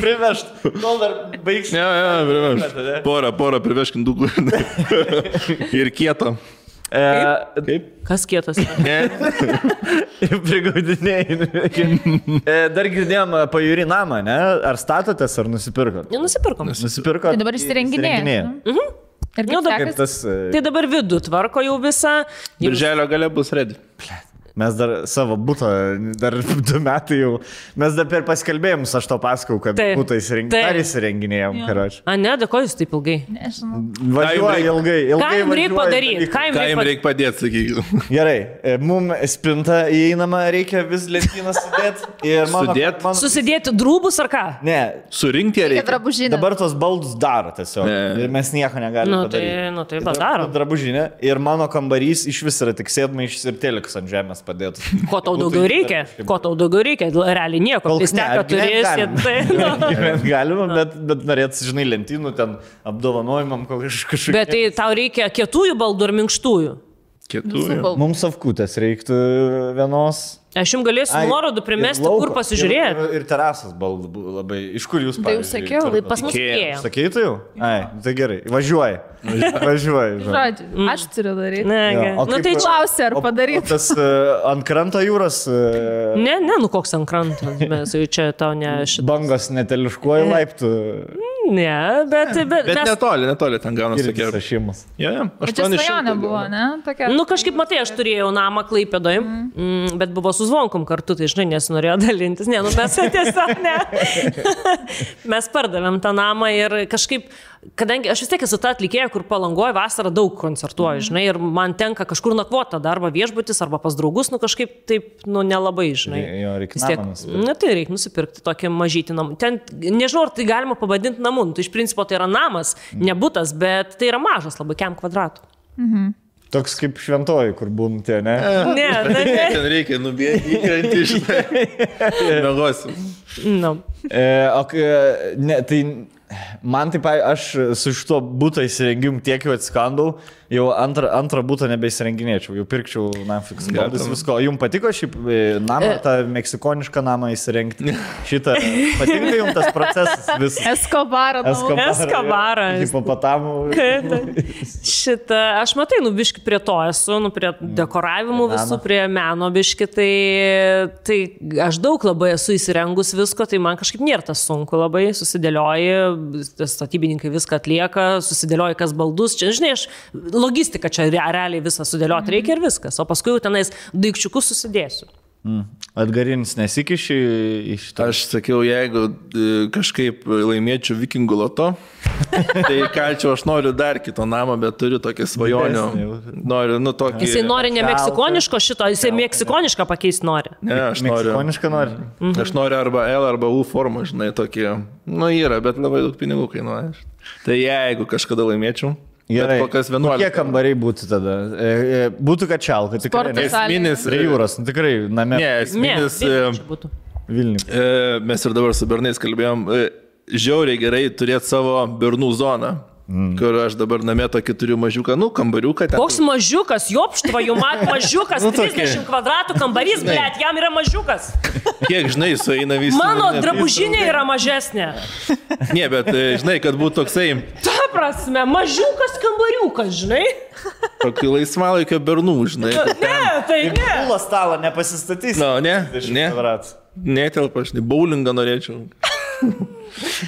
Privešt, kol dar baigs. Ne, privešt. Porą priveškim dugų. Ir kieto. Kaip? Kas kietas? Ne. Prigaudinėjai. Dar girdėjom pajūrį namą, ne? Ar statotės, ar nusipirkot? Nusipirkom. Nusipirkot. Tai dabar įsirenginėja. Ir kaip tas... Tai dabar vidų tvarko jau visą. Birželio gale bus ready. Mes dar savo butą, dar 2 metai jau, mes dar per paskelbėjimus aš to pasakau, kad butą įsirenginėjom, karoči. A, ne, dėkoju jūs taip ilgai. Važiuoja ilgai. Ką jums reikia padaryti? Ką jums reikia padėti, sakykime? Gerai, mums spinta įeinama, reikia vis lentyną sudėti. Susidėti drūbus ar ką? Ne. Surinkti reikia. Dabar tos baldus daro tiesiog. Ir mes nieko negalime padaryti. Tai padaro. Drabužinė. Ir mano kambarys iš vis yra tik sėdmaišis ir telikas ant žemės. Padėtų. Ko tau daugiau reikia? Ko tau daugiau reikia? Realiai nieko. Pisteka turėsi. Galima, bet norėtų, žinai, lentynų ten apdovanojimam kažkokiu. Bet tai tau reikia kietųjų baldų ar minkštųjų? Kietųjų. Mums savkutės reiktų vienos. Aš jums galėsiu nuorodų primesti, kur pasižiūrėti. Ir terasas baldų labai. Iš kur jūs pavyzdžiui? Tai jau sakiau, pas mus Ikea. Sakei tu jau? Ai, tai gerai. Važiuoji. Žodžiu, aš turiu daryti. Nu tai klausia, ar padaryti. Tas ant kranto jūros... Ne, nu koks ant kranto. Mes jau čia tau ne šitas. Bangos neteliškuoji laiptų. Ne, bet netoli ten gaunasi tokie. Sašimas. Bet čia svajonė buvo, ne? Nu kažkaip matai, aš turėjau namą Klaipėdoj, bet buvo su Zvonkom kartu, tai žinai, nesinorėjo dalintis. Ne, nu mes tiesiog ne. Mes pardavėm tą namą ir kažkaip, kadangi aš vis tiek esu ta atlikėja, kur Palangoje vasarą daug koncertuoju, žinai, ir man tenka kažkur nakvoti arba viešbutis, arba pas draugus, nu kažkaip taip, nu nelabai, žinai. Jo, reikia namą nusipirkti. Nu tai reikia nusipirkti tokį mažytį namą. Ten, nežinau, ar tai galima pavadinti namu, tai iš principo tai yra namas, ne butas, bet tai yra mažas labai, kiam kvadratų. Toks kaip šventoji, kur būn tie, ne? Ne. Ten reikia nubėgti, įkrenti iš mėgosim. No. Tai man taip, aš su šituo būto įsirengimu tiek jau atskandau, jau antrą būtą nebeįsirenginėčiau, jau pirkčiau namfiks baldus visko. Jums patiko šį namą, tą meksikonišką namą įsirengti? Šitą, patinka jums tas procesas visas? Eskobarą. Hipopotamų. Šitą, aš matai, biški prie to esu, prie dekoravimų visų, prie meno biški, tai aš daug labai esu įsirengus visko, tai man kažkaip nėra tas sunku labai, susidėlioji, statybininkai viską atlieka, susidėlioji kas baldus, čia, žinai, logistika čia realiai visą sudėlioti reikia ir viskas, o paskui jau tenais daikčiukus susidėsiu. Atgarinis nesikiši iš to? Aš sakiau, jeigu kažkaip laimėčiau Vikingų loto, tai kalčiau, aš noriu dar kito namą, bet turiu tokį svajonių. Noriu, tokį... Jisai nori ne meksikoniško šito, jisai meksikonišką pakeisti nori. Ne, aš noriu. Meksikonišką nori? Aš noriu arba L, arba U formą, žinai, tokį. Yra, bet labai daug pinigų kainuoja. Tai jeigu kažkada laimėčiau, gerai, kokie kambariai būtų tada? Būtų kačialka, tikrai. Esminis prie jūros, tikrai name. Ne, esminis. Vilniuje. Mes ir dabar su bernais kalbėjom, žiauriai gerai turėti savo bernų zoną. Kur aš dabar namie tokį turiu mažiuką, kambariuką. Koks mažiukas, jopštva, jų mažiukas, 30 kvadratų kambarys, blėt, jam yra mažiukas. Kiek, žinai, sueina visi. Mano drabužinė yra mažesnė. Ne, bet, žinai, kad būtų toksai... Ta prasme, mažiukas kambariukas, žinai. Tokį laisvalaikio bernų, žinai. Ne, tai ne. Pūlą stalą nepasistatys. Netelpa, aš bowlingą norėčiau.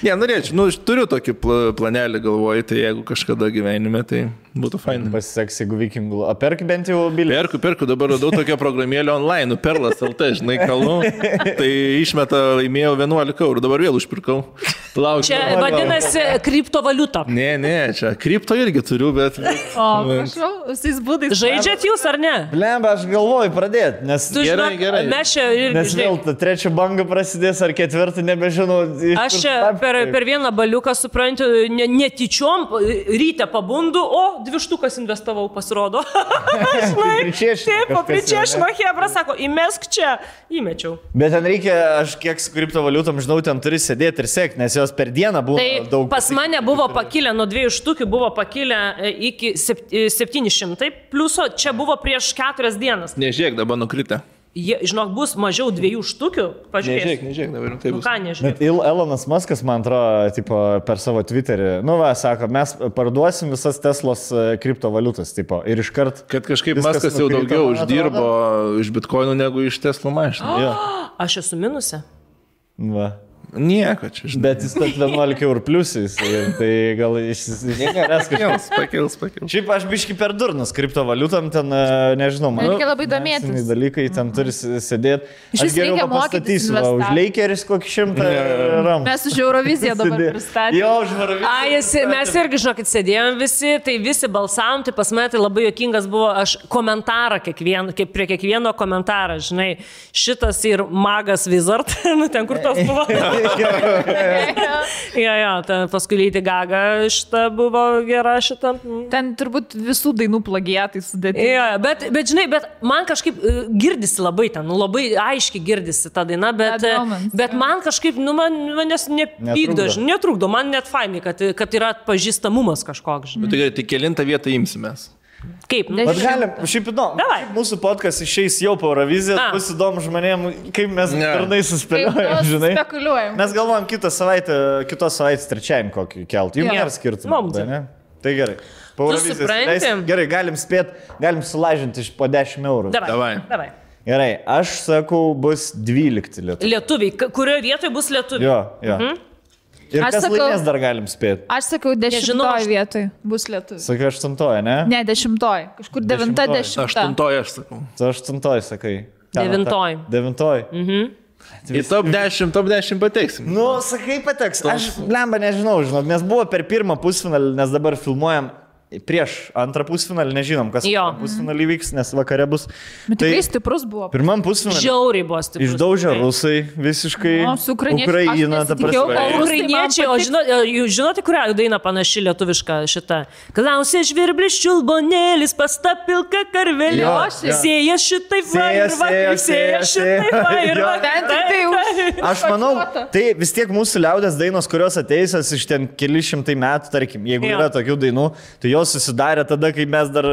Ne, norėčiau, turiu tokį planelį galvoju, tai jeigu kažkada gyvenime, tai būtų fainai. Pasiseks, jeigu vikingų. O perk bent jau bilį? Perku, dabar radau tokią programėlę online, Perlas LT, žinai, kalnu. Tai išmeta, laimėjau 11 eurų, dabar vėl užpirkau. Lauk. Čia vadinasi kriptovaliuta. Ne, čia kripto irgi turiu, bet... O, prašau, visais būdais. Žaidžiat jūs ar ne? Blemba, aš galvoju pradėti, nes... Tu žinok, gerai. mes čia Nes irgi... vėl ta trečia banga prasidės ar ketvirta, nebežinau. Aš čia per vieną baliuką, suprantu, netyčiom, ryte pabundu, o 2 štukas investavau, pasirodo. Taip, papričiešino Hebra, sako, įmesk čia, įmečiau. Bet ten reikia, aš kiek su kriptovaliutom žinau, ten turi sėdėti ir sekti, nes jos per dieną buvo daug. Pas mane buvo pakilę, nuo 2 štukių buvo pakilę iki 700 pliuso, čia buvo prieš 4 dienas. Nežiūrėk, dabar nukritę. Žinok, bus mažiau 2 štukių, pažiūrėk. Nežiūrėk, dabar taip bus. Ką nežiūrėk? Bet Elonas Muskas, man atrodo, tipo, per savo Twitterį, sako, mes parduosim visas Teslos kriptovaliutas, tipo, ir iškart... Kad kažkaip Muskas jau daugiau uždirbo iš bitkoinų negu iš Tesla mašinų. Aš esu minuse. Va. Nieko čia, žinai. Bet jis tad 11 eurų pliusais, tai gal pakils. Šiaip aš biški per durnas kriptovaliutam, ten, nežinau, man. Reikia labai domėtis. Dalykai ten turi sėdėti. Iš vis reikia mokytis. Už Lakeris kokį 100 ram. Mes už Euroviziją dabar pristatėme. Jo, už Euroviziją. Mes irgi, žinokit, sėdėjom visi, tai visi balsavom, tai pas mane tai labai juokingas buvo, aš komentarą prie kiekvieno komentarą, žinai, šitas ir magas Wizard, ten kur tos buvo. Ten paskui Lady Gaga šita buvo gera šita. Ten turbūt visų dainų plagiatai sudėti. Bet žinai, bet man kažkaip girdisi labai ten, labai aiškiai girdisi ta daina, bet man kažkaip, manęs nepykdo, netrukdo, man net fainai, kad yra atpažįstamumas kažkoks. Bet tai kelintą vietą imsimės. Kaip? Bet galim, šiaip įdomu, mūsų podcast išeis jau po Eurovizijos, bus įdomu žmonėm, kaip mes darnai suspėliojame, žinai. Spekuliuojam. Mes galvojam kitos savaitės trečiajam kokį keltą, jums nėra skirtumą. Tai gerai. Po Eurovizijos. Gerai, galim spėti, galim sulažinti po 10 eurų. Davai. Gerai, aš sakau, bus 12 lietuviai. Lietuviai, kurioje vietoje bus lietuviai? Jo. Ir kas laimės dar galim spėti? Aš sakau, 10 vietoj bus lietuvių. Sakai 8, ne? Ne, 10. Kažkur 9, 10. 8 aš sakau. Tu 8 sakai. 9. Į top 10 pateksim. Sakai pateks. Aš blemba nežinau, nes buvo per pirmą pusfinalį, nes dabar filmuojam prieš antrą pusfinalį, nežinom, kas pusfinalį vyks, nes vakare bus. Bet tikrai stiprus buvo. Pirmam pusfinalį. Žiauriai buvo stiprus. Išdaužė rusai visiškai. Ukraina, ta prasme. Ukrainiečiai, o žinote, kurią dainą panaši lietuviška šita? Klausė žvirblis čiulbonėlis, pasta pilka karvelė. Sėja šitai Aš manau, tai vis tiek mūsų liaudės dainos, kurios ateisios iš ten keli šimtai metų, tarkim, jeigu yra tokių dainų, tai jos susidarė tada, kai mes dar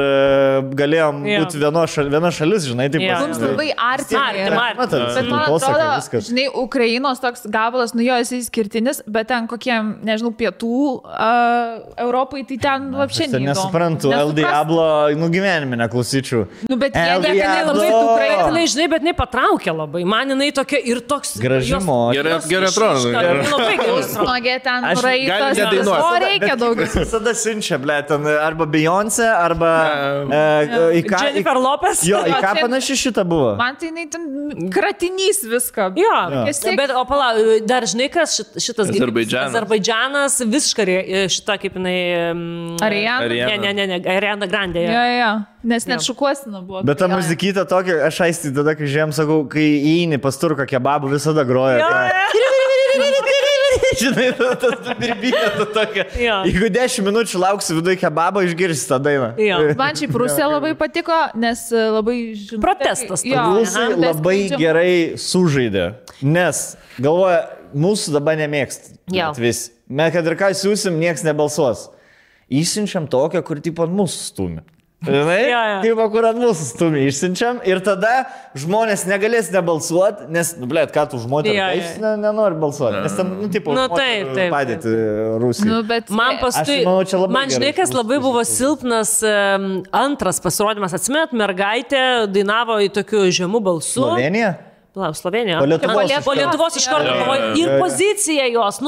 galėjom būti viena šalis, žinai, taip pat. Mums labai artimai. Bet man atrodo, žinai, Ukrainos toks gabalas, jis išskirtinis, bet ten kokie, nežinau, pietų Europai, tai ten vapščiai neįdomu. Nesuprantu, El Diablo, gyvenime neklausyčiau. Bet jie labai Ukrainai, žinai, bet jinai patraukė labai. Man jinai tokia ir toks... Gražimo. Gerai atrodo. Labai gerai. Snogė ten raitas. O reikia daugiau. Visada siunčia, ble, ten arba Beyoncé, arba... Jennifer Lopez. Jo, į ką panaši šitą buvo? Man tai jinai ten kratinys viską. Jo, bet o pala, dar žinai, kas šitas... Azerbaidžanas visiškai šita kaip jinai... Ariana? Ne, Ariana Grande. Jo, nes net šukuosina buvo. Bet ta muzikyta tokia, aš aisti tada, kai žiūrėjom, sakau, kai įeini pas turką kebabų, visada groja. Žinai, tas birbynė tokia. Jeigu 10 minučių lauksi viduje kebabą, išgirsi tą dainą. Man šiaip Rusija labai patiko, nes labai žinau. Protestas. Rusai labai gerai sužaidė, nes galvoja, mūsų dabar nemėgst. Vis. Mes kad ir ką siūsim, nieks nebalsuos. Įsiunčiam tokią, kur tipo mūsų stumi. Žinai, kaip kur ant mūsų stumi išsiunčiam ir tada žmonės negalės nebalsuoti, nes, blėt, ką tu žmonės nenori balsuoti, nes tam, padėti Rusijai. Man žinai, kas labai buvo silpnas antras pasirodymas, atsimenat, mergaitė dainavo į tokiu žemų balsu. Slovenija? Slovenija. Po Lietuvos iš karto galvoju. Ir pozicija jos,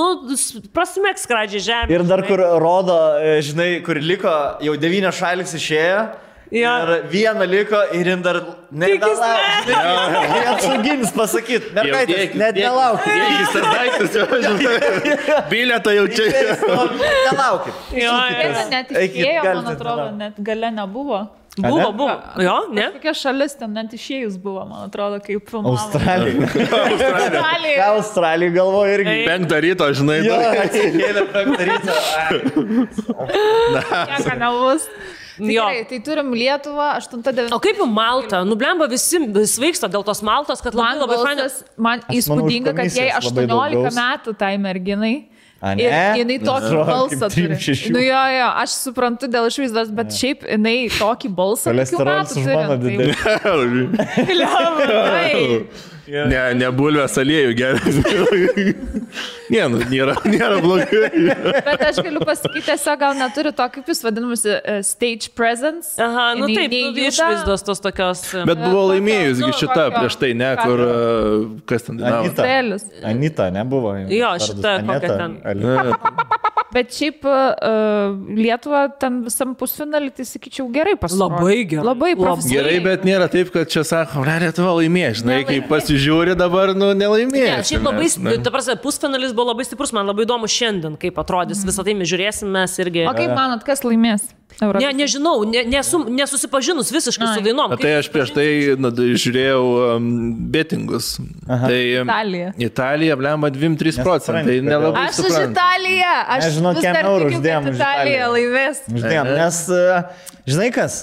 prasmėk skradžiai žemė. Ir dar kur rodo, žinai, kur liko, jau 9 šalis išėjo Ir vieną liko ir jin dar nedalauk. Jie apsauginis pasakyti, mergaitės, net nelauk. Jis tas daiktas jau žinai. Bilietą jau čia. Nelaukit. Net išėjo, man atrodo, net gale nebuvo. Buvo. Jo, ne? Kokia šalis ten net išėjus buvo, man atrodo, kaip filmavo. Australija galvoja irgi. 5 ryto, žinai. Jo, atsikėlė 5 ryto. Nieko nebus. Tikrai, tai turim Lietuvą, 8-9. O kaip jau Malta? Nublemba visi svaigsta dėl tos Maltos, kad labai fainas. Man įspūdinga, kad jai 18 metų tai merginai. Ir jinai tokį balsą turi. Nu jo, aš suprantu dėl išvaizdos, bet šiaip jinai tokį balsą. Kolesterolis už mano didelį. Ne bulvės aliejų geras. Nėra blogai. Bet aš galiu pasakyti, tiesiog gal neturi to, kaip jūs vadinamusi, stage presence. Aha, nu taip, išvaizdos tos tokios. Bet buvo laimėjusgi šita prieš tai, ne, kur, kas ten dainavo. Anita nebuvo. Jo, šita kokia ten. Bet šiaip Lietuva ten visam pusfinalį, tai sakyčiau, gerai pasirodė. Labai gerai. Labai profesionaliai. Gerai, bet nėra taip, kad čia sako, Lietuva laimėjo, žinai, kai pasižiūri dabar, nu, nelaimėjo. Ne, šiaip labai, ta prasme, pusfinalis buvo labai stiprus, man labai įdomu šiandien, kaip atrodys, visą tai mes žiūrėsim, mes irgi. O kaip manot, kas laimės? Ne, nežinau, nesusipažinus visiškai su dainom. Tai aš prieš tai žiūrėjau betingus. Tai Italija, blemba 2-3%. Tai nelabai aš už Italiją. Aš žinau, kiek eurų uždėjom už Italiją laimės. Uždėjom, nes, žinai kas,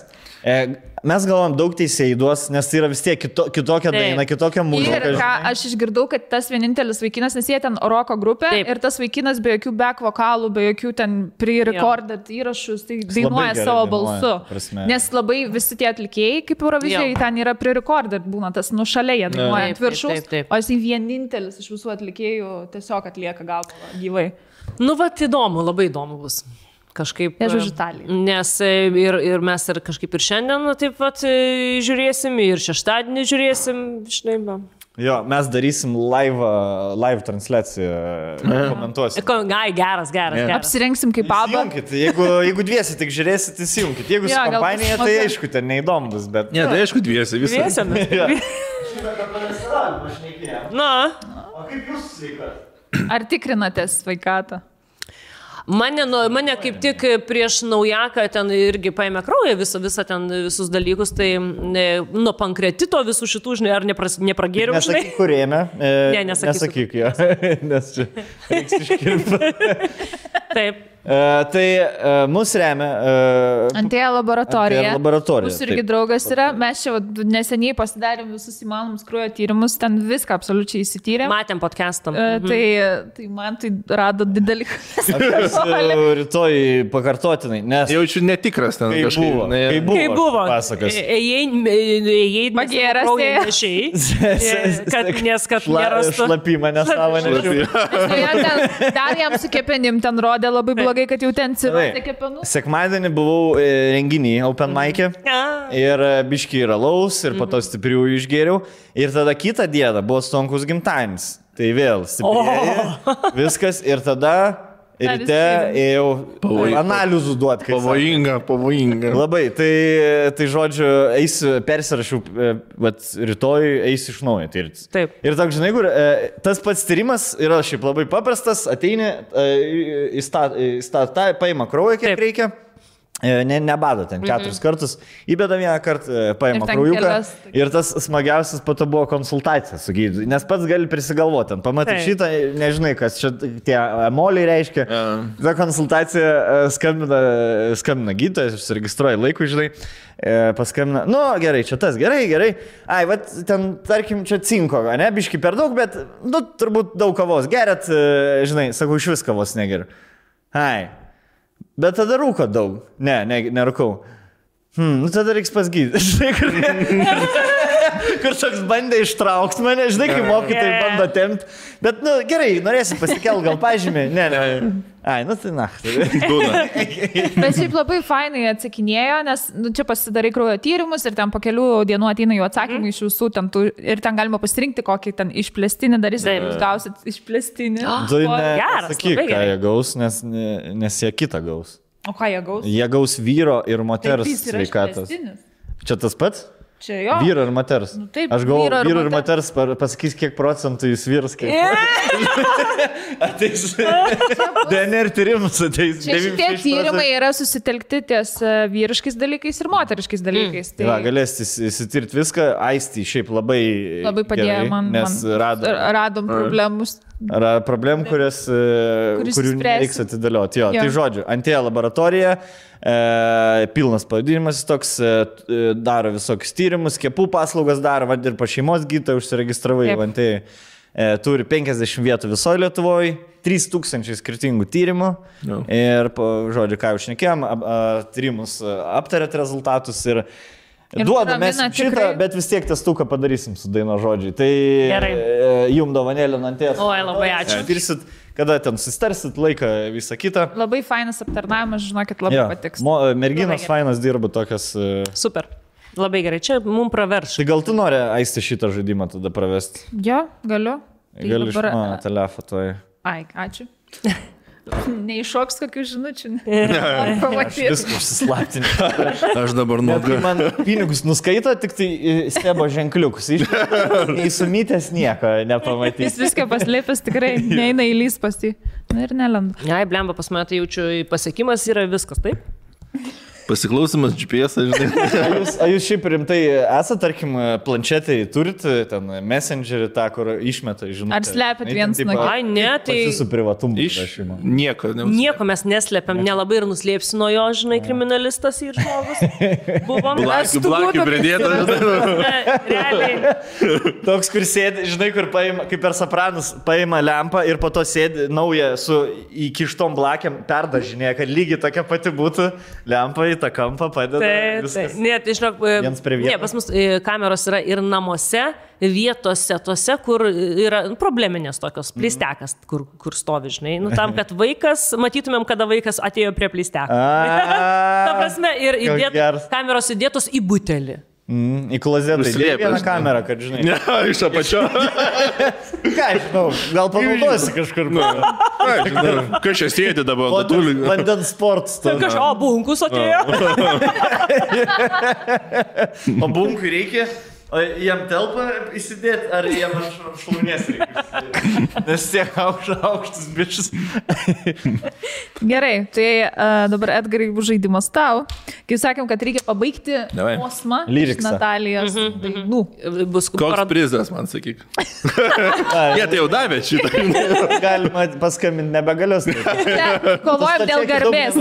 mes galvom daug teisėjų duos, nes tai yra vis tiek kitokia daina, kitokia muzika. Ir ką aš išgirdau, kad tas vienintelis vaikinas, nes jie ten roko grupė ir tas vaikinas be jokių back vokalų, be jokių ten pre-recorded įrašus, tai dainuoja savo balsu. Nes labai visi tie atlikėjai, kaip Eurovizijai, ten yra pre-recorded, būna tas nušalia, jie dainuoja ant viršaus, o jis vienintelis iš visų atlikėjų tiesiog atlieka galvą gyvai. Nu, va, įdomu, labai įdomu bus. Kažkaip. Aš už Italiją. Nes ir mes ir kažkaip ir šiandien taip pat žiūrėsim, ir šeštadienį žiūrėsim, žinai, va. Jo, mes darysim live transliaciją, komentuosim. Geras. Apsirengsim kaip pabą. Jeigu dviesi tik žiūrėsit, įsijunkit. Jeigu su kompanija, tai aišku, ten neįdomu bus, bet... Ne, tai aišku dviesi visą. Na. O kaip jūs sveikat? Ar tikrinatės sveikatą? Mane kaip tik prieš naujaką ten irgi paėmė kraują visą ten visus dalykus, tai nuo pankreatito visų šitų, žinai, ar nepragėriau, žinai. Nesakyk, kur ėmė. Ne, nesakyk jo, nes čia reiks iškirpti. Taip. Tai mus remia Antėja laboratorija. Mūsų irgi draugas yra. Mes čia neseniai pasidarėm visus įmanomus kraujo tyrimus, ten viską absoliučiai įsityrėm. Matėm podcastam. Tai man tai rado didelį. Aš rytoj pakartotinai, nes jaučiu netikras ten kažkaip. Kaip buvo. Pasakas. Ėjai magėras nešiai, kad nerastų. Šlapimą nesavo nešiau. Dar jam su kepenim ten rodė labai blogai, kad jau ten cirozė kepenų. Sekmadienį buvau renginį Open Mic'e ir biški yra laus ir po to stiprių išgėriau. Ir tada kitą dieną buvo Stonkus gimtadienis. Tai vėl stipriai viskas ir tada ryte ėjau analizų duoti. Pavojinga. Labai. Tai žodžiu, persirašiau, rytoj eisiu iš naujo. Taip. Ir toks, žinai, kur tas pats tyrimas yra šiaip labai paprastas, ateini, paima kraują, kiek reikia. Nebado ten 4 kartus, įbeda vieną kartą, paima kraujuką ir tas smagiausias po to buvo konsultacija su gydytoju, nes pats gali prisigalvoti, pamatai šitą, nežinai, kas čia tie emoliai reiškia. Ta konsultacija skambina gydytojas, užsiregistruoja laikų, žinai, paskambina, nu gerai, čia tas, gerai. Ai, va, ten, tarkim, čia cinko, ne, biški per daug, bet, nu, turbūt daug kavos gerat, žinai, sakau, iš vis kavos negeriu. Ai. Bet tada rūko daug. Nerūkau. Nu tada reiks pas gydytoją. Kur toks bandė ištraukti mane, žinai, kai mokytojai bando tempti. Bet, nu, gerai, norėsi pasikelt, gal pažymė. Ne. Ai, nu tai Bet šiaip labai fainai atsakinėjo, nes čia pasidarai kraujo tyrimus ir ten po kelių dienų ateina jų atsakymai iš visų ten ir ten galima pasirinkti kokį ten išplėstinį darysit, jūs gausit išplėstinį. Tu nesakyk, ką jie gaus, nes jie kitą gaus. O ką jie gaus? Jie gaus vyro ir moters Taip, jis yra sveikatos. išplėstinis. Čia tas pats? Čia jo. Vyro ir moters. Nu, taip, Aš galvoju, vyro ir vyro ir moters pasakys, kiek procentų jūs vyras. Ateis. DNR tyrimus ateis. Čia šitie tyrimai yra susitelkti ties vyriškais dalykais ir moteriškais dalykais. Tai galėsite įsitirti viską. Aistį šiaip labai padėjo gerai, man. Nes radom problemus. Problemų, kurių reiks atidėlioti. Jo. Tai žodžiu, Antėja laboratorija, pilnas pavadinimas toks, daro visokius tyrimus, skiepų paslaugas daro, ir pa šeimos gydytoją užsiregistravai Antėjai. Turi 50 vietų visoje Lietuvoje, 3000 skirtingų tyrimų. Ir, žodžiu, ką jau šnekėjom, tyrimus aptarėt rezultatus ir duoda mes šitą, bet vis tiek testuką padarysim su Daino žodžiai. Tai jum dovanėlė Antėjas. Oi, labai ačiū. Pirsit, kada ten sustarsit, laiką, visą kitą. Labai fainas aptarnavimas, žinokit, labai patiks. Merginos fainas dirba tokias. Super. Labai gerai, čia mums praverš. Tai gal tu nori Aisti šitą žaidimą tada pravesti? Jo, galiu. Gali iš mano telefono. Ai, ačių. Neiššoks kokių žinučių. Aš viską užsislaptinti. Aš dabar nuoga. Man pinigus nuskaito, tik tai stebo ženkliukus. Įsumytęs nieko nepamatys. Jis viską paslėpęs, tikrai neina įlys pas jį. Na ir nelenda. Ai, blemba, pas mane tai jaučiu pasiekimas yra viskas, taip? Pasiklausimas GPS, žinai. Ar jūs šiaip rimtai esate, tarkim, planšetai turit, ten messengerį tą, kur išmeta, žinai. Ar slepiat vienas nuo kito? Ai, ne, tai... Jūsų privatumo prašymą. Nieko mes neslėpiam, nelabai ir nuslėpsi nuo jo, žinai, kriminalistas ir žmogus. Buvom. Blakių pridėtas. Realiai. Toks, kur sėdi, žinai, kur paima, kaip per Sopranus, paima lempą ir po to sėdi naują su įkištom blakiam perdažinėje, kad lygiai tokia pati būtų lempa į tą kampą padeda. Taip. Ne, tai žinok, pas mus kameros yra ir namuose, vietose, tose, kur yra probleminės tokios, pleistekas, kur stovi, žinai. Nu, tam, kad vaikas, matytumėm, kada vaikas atėjo prie pleisteko. Ta prasme, ir kameros įdėtos į butelį. Į klozetą įdėjo vieną kamerą, kad žinai. Ne, iš apačio. Ką, žinau, gal panaudosi kažkur. Kas čia sėdi dabar? Vandens sportas. O, bunkus atėjo. O bunkui reikia? O jam telpa įsidėti, ar jam šlaunės reikia? Nes tiek aukštas bičias. Gerai, tai dabar Edgarai bus žaidimas tau. Kaip sakėm, kad reikia pabaigti posmą iš Natalijos dainų. Koks prizas, man sakyk. Jie tai jau davė šitą. Galima paskambinti, nebegalios. Kovojam dėl garbės.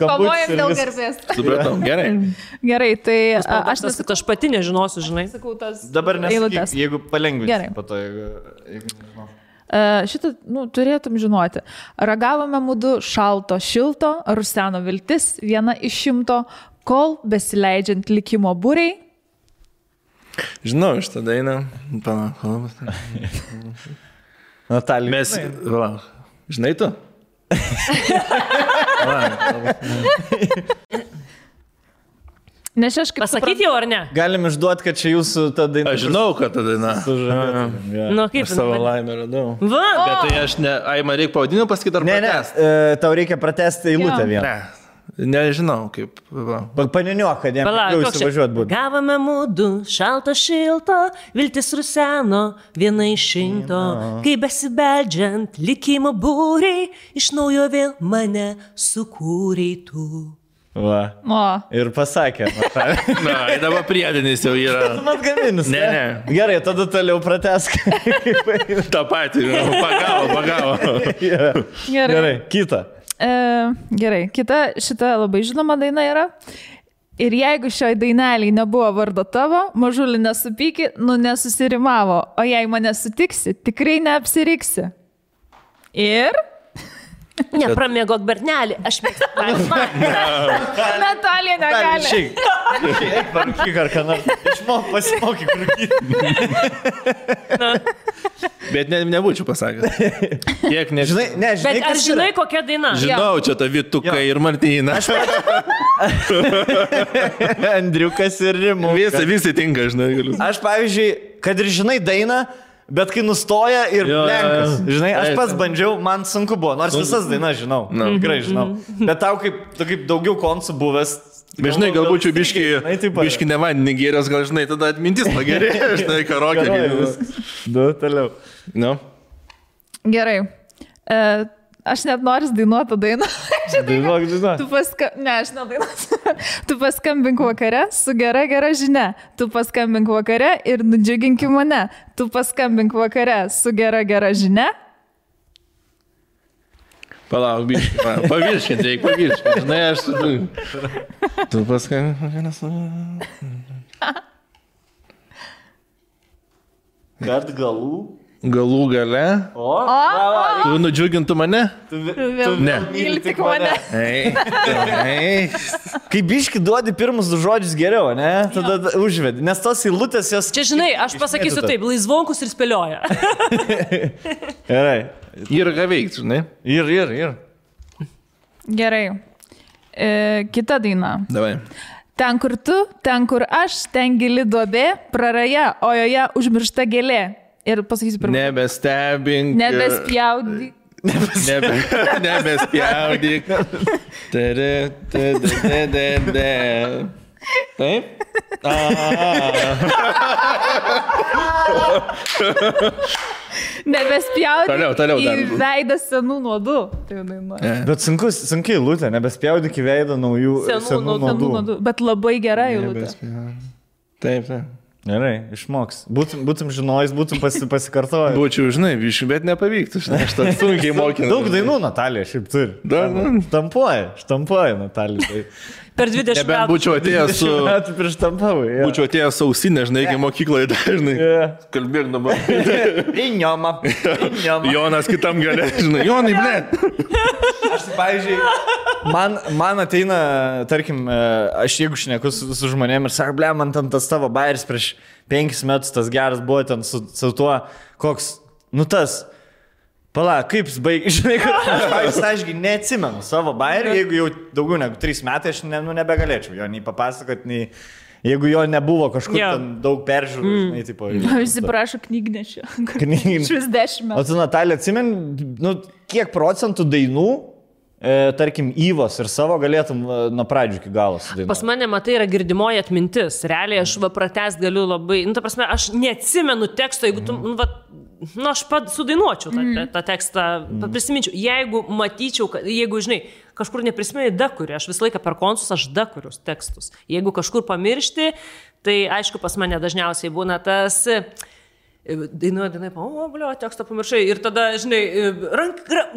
Kovojam dėl garbės. Supratau, gerai. Gerai, tai aš pati nežinosiu, žinai. Dabar nesakyk, jeigu palengvinti po to, jeigu nežinau. Šitą, turėtum žinoti. Ragavome mudu šalto, šilto, ruseno viltis, 1 iš 100, kol besileidžiant likimo būriai. Žinau, šitą dainą. Palauk. Natalija. Mes, žinai tu? Nes aš kaip... Pasakyti jau ar ne? Galim išduoti, kad čia jūsų ta daina. Aš žinau, kad ta daina. Nu, kaip aš savo laimę radau. Va! Bet tai aš ne... Ai, man reikia pavadinimą pasakyti ar pratesti? Ne, tau reikia pratesti eilutę vieną. Nežinau, kaip... Paniniuok, kad jam jau įsivažiuot būtų. Gavome mudu šalto, šilto, viltis ruseno, 1 iš 100. Kai besibeldžiant likimo būriai, iš naujo vėl mane sukūrei tu. Va. Ir pasakė. Na, dabar priedinis jau yra. Man gaminis. Ne. Gerai, tada toliau pratesk. Ta pati, pagavo. Gerai, kita. Gerai, kita šita labai žinoma daina yra. Ir jeigu šioj daineliai nebuvo vardo tavo, mažulį nesupyki, nesusirimavo. O jei mane sutiksi, tikrai neapsiriksi. Ir... Nepramėgok bernelį, aš mėgstu. Natalija negali. Eik parūkyk ar ką nors. Išmok, pasimokyk rūkyti. Bet nebūčiau pasakęs. Kiek nežinai. Bet ar žinai kokia daina? Žinau, čia ta Vituka ir Martyna. Andriukas ir Rimu. Visi tinka, žinai. Aš, pavyzdžiui, kad ir žinai dainą, bet kai nustoja ir lenkas. Žinai, aš pats bandžiau, man sunku buvo, nors visas dainas žinau. Tikrai žinau. Bet tau kaip daugiau koncų buvęs. Žinai, galbūt čia biški ne vandenį gėrės, gal žinai, tada atmintis pagerėjo, žinai, karokė gėrės. Du, toliau. Nu. Gerai. Aš net noriu dainuoti dainą. Dainuok, dainuok. Ne, aš nedainuosiu. Tu paskambink vakare su gera žinia. Tu paskambink vakare ir nudžiuginki mane. Tu paskambink vakare su gera žinia. Palauk, biškai. Pavirškint, reikia pavirškint. Žinai, aš... Tu paskambink vakare su... Gart galų. Galų gale. Tu nudžiugintų mane? Tu myli tik mane. Kai biški duodi pirmus du žodžius geriau, ne? Tada užvedi. Nes tos eilutės jos... Čia žinai, aš pasakysiu taip, laisvonkus ir spėlioja. Gerai. Ir ką veikti, žinai? Ir. Gerai. Kita daina. Davai. Ten, kur tu, ten, kur aš, ten gili duobė, praraja, o joje užmiršta gėlė. Ir pasakysiu pirmą. Nebestebink. Nebespjaudyk. Nebespjaudyk. Taip? Nebespjaudyk Toliau į veidą senų nuodų. Bet sunkiai eilutė, nebespjaudyk į veidą naujų senų nuodų. Bet labai gera eilutė. Taip. Gerai, išmoks. Būtum žinojus, būtum pasikartojęs. Būčiau, žinai, viškai, bet nepavyktų. Aš tą sunkiai mokinau. Daug dainų Natalija šiaip turi. Štampuoja Natalija. Per 20 metų. Nebent būčiau atėjęs su... 20 metų prieš tampavai. Būčiau atėjęs sausinę, žinai, iki mokykloje dažnai. Kalbėk dabar. Iņoma. Jonas kitam galė, žinai. Jonai, blėt. Aš, pavyzdžiui, man ateina, tarkim, aš jeigu šneku su žmonėm ir sako, ble, man tam tas tavo bairis prieš 5 metus tas geras buvo ten su tuo, koks, nu tas... Pala, kaip jis baigė, žinai, kad ašgi neatsimenu savo bairį, jeigu jau daugiau negu 3 metai aš nebegalėčiau jo nei papasakot, nei jeigu jo nebuvo kažkur ten daug peržiūrų, žinai, tipo. Visi prašo knygnešio. Švis 10 metų. O tu, Natalija, atsimeni, nu, kiek procentų dainų, tarkim, Yvos ir savo galėtum nuo pradžių iki galo sudainuoti? Pas mane, matai, yra girdimoji atmintis. Realiai aš pratęst galiu labai, nu, ta prasme, aš neatsimenu teksto, jeigu tu, nu, aš sudainuočiau tą tekstą, prisiminčiau. Jeigu matyčiau, jeigu, žinai, kažkur neprisimeni dakuriu, aš visą laiką per konsus aš dakurius tekstus. Jeigu kažkur pamiršti, tai aišku, pas mane dažniausiai būna tas... Dainuoja, o, blio, tekstą pamiršai. Ir tada, žinai,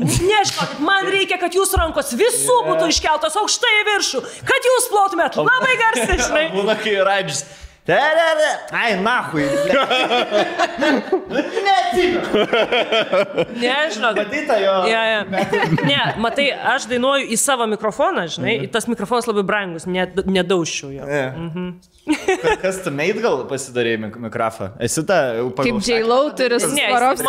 nežinokit, man reikia, kad jūsų rankos visų būtų iškeltos aukštai į viršų, kad jūs plotumėt labai garsiai, žinai. Būna, kai radžis. Ai, nahui. Nežinok. Matyta jo. Ne, matai, aš dainuoju į savo mikrofoną, žinai, tas mikrofonas labai brangus, nedaužčiau jo. Kas tu meit gal pasidarė mikrofą? Esi ta... Kaip J.Lo turi Svarovskis?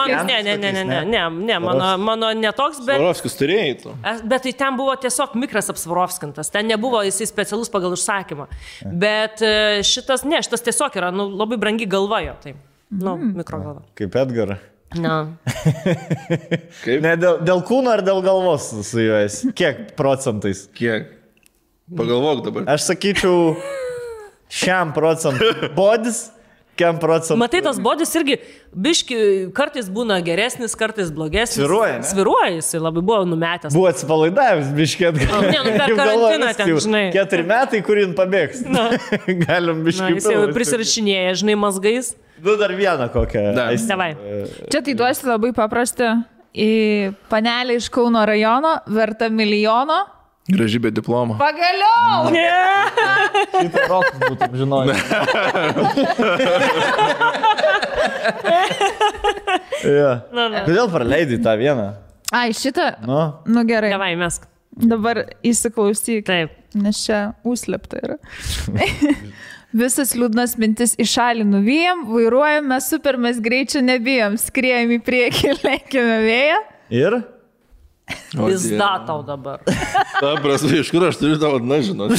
Ne, mano netoks, bet... Svarovskis turėjai tu. Bet tai ten buvo tiesiog mikras apsvarovskintas, ten nebuvo jisai specialus pagal užsakymą. Bet šitas tiesiog yra, nu, labai brangi galva jo, tai, nu, mikrogalva. Kaip Edgar. Na. Ne, dėl kūno ar dėl galvos su juo esi? Kiek procentais? Kiek? Pagalvok dabar. Aš sakyčiau, 100% bodis, 100%. Matai, tas bodis irgi, biški, kartais būna geresnis, kartais blogesnis. Sviruoja, ne? Sviruoja, jisai labai buvo numetęs. Buvo atsipalaidavęs, biški atgal. Ne, nu per karantiną ten, žinai. 4 metai, kurį pabėgs. Galim biški. Jis jau prisirašinėja, žinai, mazgais. Du dar vieną kokią. Davai. Čia tai duosi labai paprastą. Į panelį iš Kauno rajono, verta milijono. Graži be diplomo. Pagaliau! Šitą rokus būtum žinojęs. Kodėl praleidai tą vieną? Ai, šitą? Nu gerai. Davai, mesk. Dabar įsiklausyk. Taip. Nes čia užslepta yra. Visas liūdnas mintis į šalį nuvyjam, vairuojame super, mes greičio nebijom, skriejam į priekį, lenkime vėją. Ir? Pizda tau dabar. Ta prasme, iš kur aš turiu tavo, na, žinot.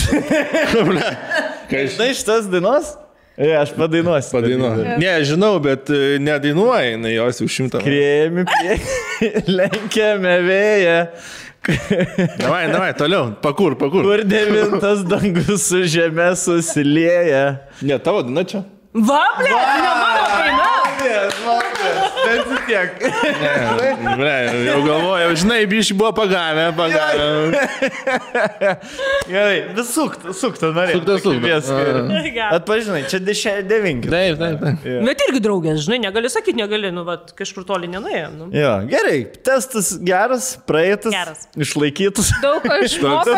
Žinai šitas dainos? Aš padainuosiu. Padainuoju. Ne, žinau, bet nedainuoja, jinai jos jau 100. Krėmi lenkiame vėją. Davai, toliau, pakur. Kur 9 dangus su žeme susilieja. Ne, tavo daina čia. Va, ble, ne mano daina. Bet tiek. Jau galvojau, žinai, bišį buvo pagavę. Gerai, vis suktą norėjau. Sukta. Atpažinai, čia 9. Taip. Bet irgi draugės, žinai, negali sakyti, nu, vat, kažkur toli nenuėjo. Nu. Jo, gerai, testas geras, praeitas, išlaikytas. Daug ko išmokau.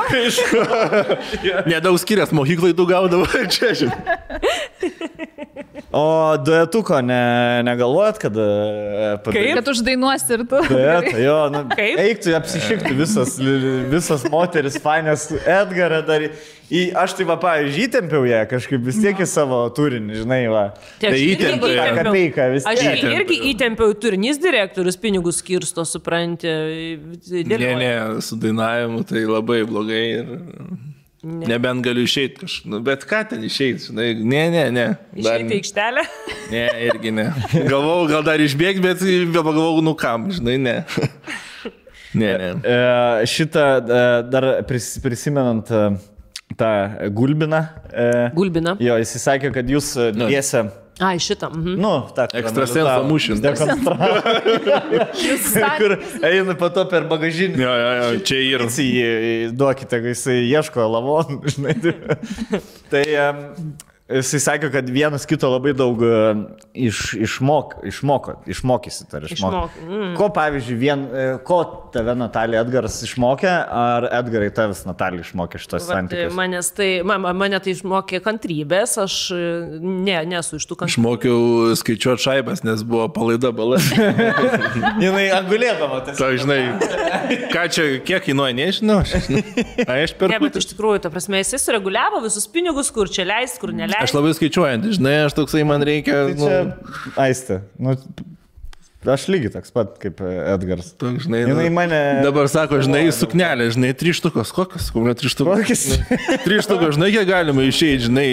Nedaug skirias, mokyklai tu gaudavo čia, žinai. O duetuko negalvojat, kad... Kad uždainuosi ir tu. Duetą, jo, nu, eiktų apsišikti visas moteris, fainės, Edgarą dar... Aš tai va, pavyzdžiui, įtempiau ją kažkaip vis tiek į savo turinį, žinai, va. Tai įtempiau. Aš irgi įtempiau turinys direktorius, pinigus skirsto, supranti. Ne, su dainavimu tai labai blogai ir... Nebent galiu išeiti kažkaip, bet ką ten išeiti, žinai, ne. Išeiti aikštelę? Ne, irgi ne. Galvojau, gal dar išbėgti, bet pagalvojau, nu kam, žinai, ne. Ne. Šitą dar prisimenant tą Gulbiną. Gulbiną. Jo, jis sakė, kad jūs dviese... Ai, šitą. Nu, tą ekstrasenso mūšis. Kur eina po to per bagažinį. Jo, čia ir. Duokite, kai jisai ieško lavonų, žinai. Tai jisai sakė, kad vienas kito labai daug išmokysit. Ko, pavyzdžiui, ko tave Natalija Edgaras išmokė, ar Edgarai tavęs Natalija išmokė šitos santykius? Mane tai išmokė kantrybės, aš nesu iš tų kantrybės. Išmokiau skaičiuoti šaibas, nes buvo palaida bala. Jinai angulėdama. Tai, žinai, ką čia, kiek kainuoja, nežinau. Aš per... Ne, bet iš tikrųjų, ta prasme, jis sureguliavo visus pinigus, kur čia leist, kur neleist. Aš labai skaičiuojant, žinai, aš toksai man reikia... Tai čia, Aiste, aš lygiai toks pat kaip Edgaras. Žinai, mane... Dabar sako, žinai, suknelė, žinai, 3 štukos. Kokios? 3 štukos. 3 štukos, žinai, kiek galima išeiti, žinai,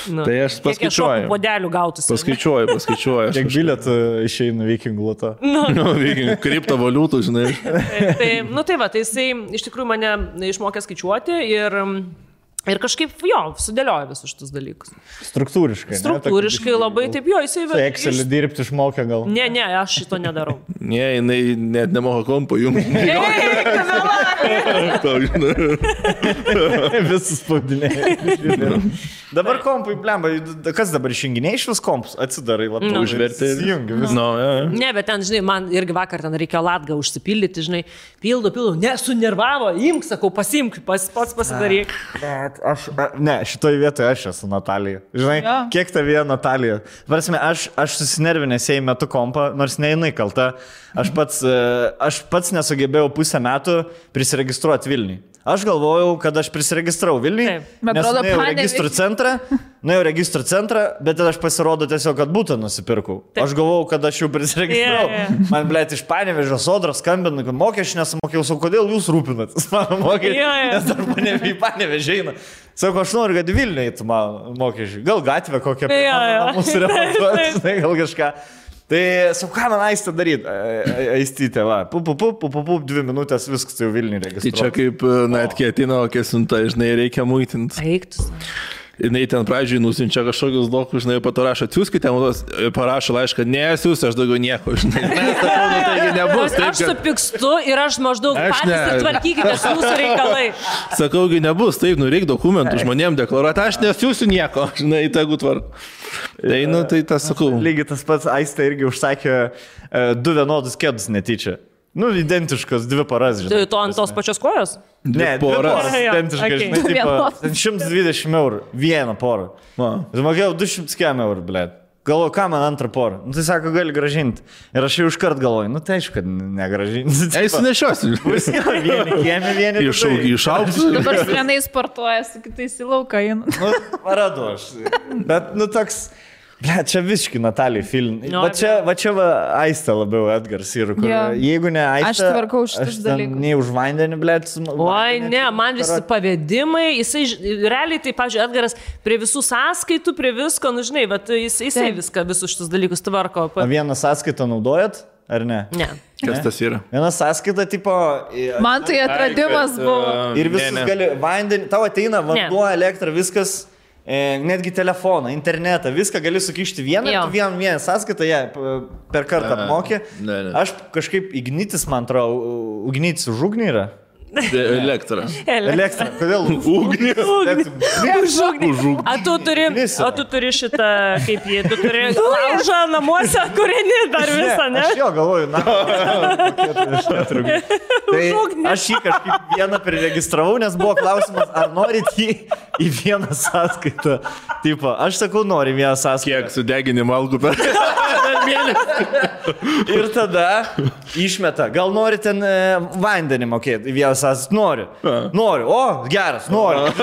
Tai aš paskaičiuoju. Kiek šokų podelių gautus. Paskaičiuoju. Kiek bilietų išeina vikingų loto. Kriptovaliutų, žinai. Tai jisai iš tikrųjų mane išmokė skaičiuoti ir kažkaip, sudėlioja visus šitus dalykus. Struktūriškai labai taip, jisai... Tai Excelį dirbti išmokė gal? Ne, aš šito nedarau. Ne, jinai net nemoka kompo jums. Visus spaudinėjai. Dabar kompai, blemba, kas dabar išjunginiai iš vis kompus? Atsidarai labai užverti. Ne, bet ten, žinai, man irgi vakar ten reikėjo latgą užsipildyti, žinai, pildo, nesunervavo, imk, sakau, pasimk, pats pasidaryk. Šitoj vietoje aš esu Natalija. Žinai, kiek tavėje Natalija? Varsime, aš susinervinęs jai metu kompą, nors ne jinai kalta. Aš pats nesugebėjau pusę metų prisiregistruoti Vilniui. Aš galvojau, kad aš prisiregistravau Vilniui, nes nuėjau registrų centrą, bet tada aš pasirodo tiesiog, kad būtą nusipirkau. Aš galvojau, kad aš jau prisiregistravau. Man, blėt, iš Panevėžio Sodros skambina, kad mokesčių nesamokėjau, sakau, kodėl jūs rūpinatės mano mokesčių, nes dar į Panevėžį eina. Sako, aš noriu, kad Vilniui eitų mano mokesčių. Gal gatvę kokią mūsų remontuoti, gal kažką. Tai, sakau, ką man Aistė daryti? Aistytė, va, 2 minutės viskas jau Vilniui registruoti. Tai čia kaip net ketino, kesinta, žinai, reikia muitinti. Eiktus. Jinai ten pradžiai nusinčia kažkokius dokus, žinai, po to rašo, atsiųskite, parašo laišką, nesiūs, aš daugiau nieko, žinai. Taigi nebus. Aš supykstu ir aš maždaug patys tvarkykite jūsų reikalai. Sakaugi, nebus, taip, reikia dokumentų žmonėm deklaruoti, aš nesiūsiu nieko, žinai, tegu tvarku. Tai tas sakau. Lygiai tas pats Aistė irgi užsakė 2 vienodus kėdus netyčia. Identiškas 2 poras, žinai. Tai tu ant tos pačios kojos? Ne, 2 poras. Identiškas, žinai, 120 eurų. 1 porą. Mokėjau 200 eurų, blėt. Galvoju, ką man antrą porą? Tai sako, gali gražinti. Ir aš jau iškart galvoju, tai aišku, kad negražinti. Eisi nešiosiu. Vieni kiemi, vieni išaugsiu. Dabar vienai sportuoja, su kitais į lauką eina. Paradu aš. Bet, toks... Ble, čia visiškai Natalijai film. Va čia Aistė labiau Edgars ir kur. Jeigu ne Aistė, aš tvarkau šitus dalykus. Nei už vandenį, ble. Oi, ne, man visi pavedimai, jisai, realiai, tai, pavyzdžiui, Edgaras prie visų sąskaitų, prie visko, nu žinai, bet jisai viską, visus šitus dalykus tvarko. O vieną sąskaitą naudojat, ar ne? Ne. Kas tas yra? Viena sąskaita, tipo... Man tai atradimas buvo. Ir visus gali vandenį, tau ateina vanduo, elektra, viskas... Netgi telefoną, internetą, viską gali sukišti vieną sąskaitą, per kartą apmokė. Aš kažkaip Ignitis, man atrodo, Ignitis už ugnį yra. Elektra. Kodėl? Ugnį. Už ugnį. A tu turi šitą, kaip jį, tu turi laužą namuose, kurinį dar visą, ne? Aš jo galvoju, tai aš jį kažkaip vieną priregistravau, nes buvo klausimas, ar norit jį į vieną sąskaitą. Tipo, aš sakau, nori vieną sąskaitą. Kiek sudeginimo algų per mėnesį. Ir tada išmeta, gal nori ten vandenį mokėti į vieną sąskaitą? Noriu. O, geras, noriu.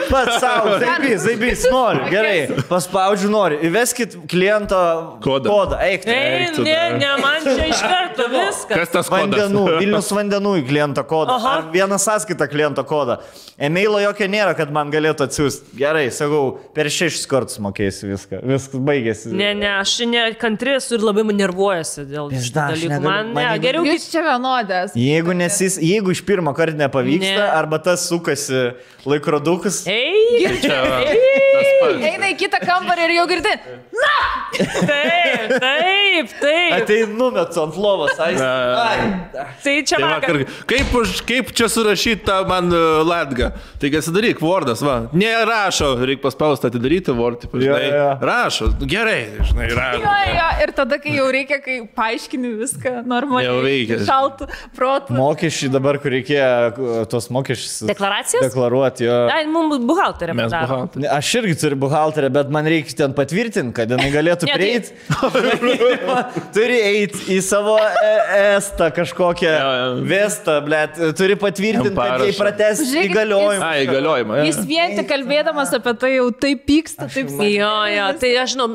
Pats savo, zaibys, noriu. Gerai, paspaudžiu, noriu. Įveskit kliento kodą. Eik, ne, man čia iš karto viskas. Kas tas kodas? Vilnius vandenų į kliento kodą. Ar vieną sąskaitą kliento kodą. E-mailo jokio nėra, kad man galėtų atsiųsti. Gerai, sakau, per 6 kartus mokėsiu viską. Viskas baigėsi. Ne, aš nekantri esu ir labai nervuojasi dėl šitų dalykų. Man geriau... Jūs čia vienodės. Jeigu iš pirmo karto nepavyksta, arba tas sukasi laikrodukas. Eina į kitą kambarį ir jau girdi. Na! Taip. Tai numetu ant lovos. Tai čia vakar. Kaip čia surašyta man latga? Tai kas daryk, Wordas, va. Nerašo, reikia paspausti atidaryti Word. Rašo, gerai, žinai, rašo. Ir tada, kai jau reikia, kai paaiškini viską normaliai, šaltų protų. Mokesčiai dabar, kur reikėjo tos mokesčius deklaruoti. Mums buhalterė padaro. Aš irgi turiu buhalterę, bet man reikia ten patvirtinti, kad jinai galėtų prieiti. Turi eiti į savo estą kažkokią vestą, blėt. Turi patvirtinti, kad jai prates įgaliojimą. Įgaliojimą. Jis vien tik kalbėdamas apie tai jau taip pyksta, taip sakė. Jo, tai aš žinau,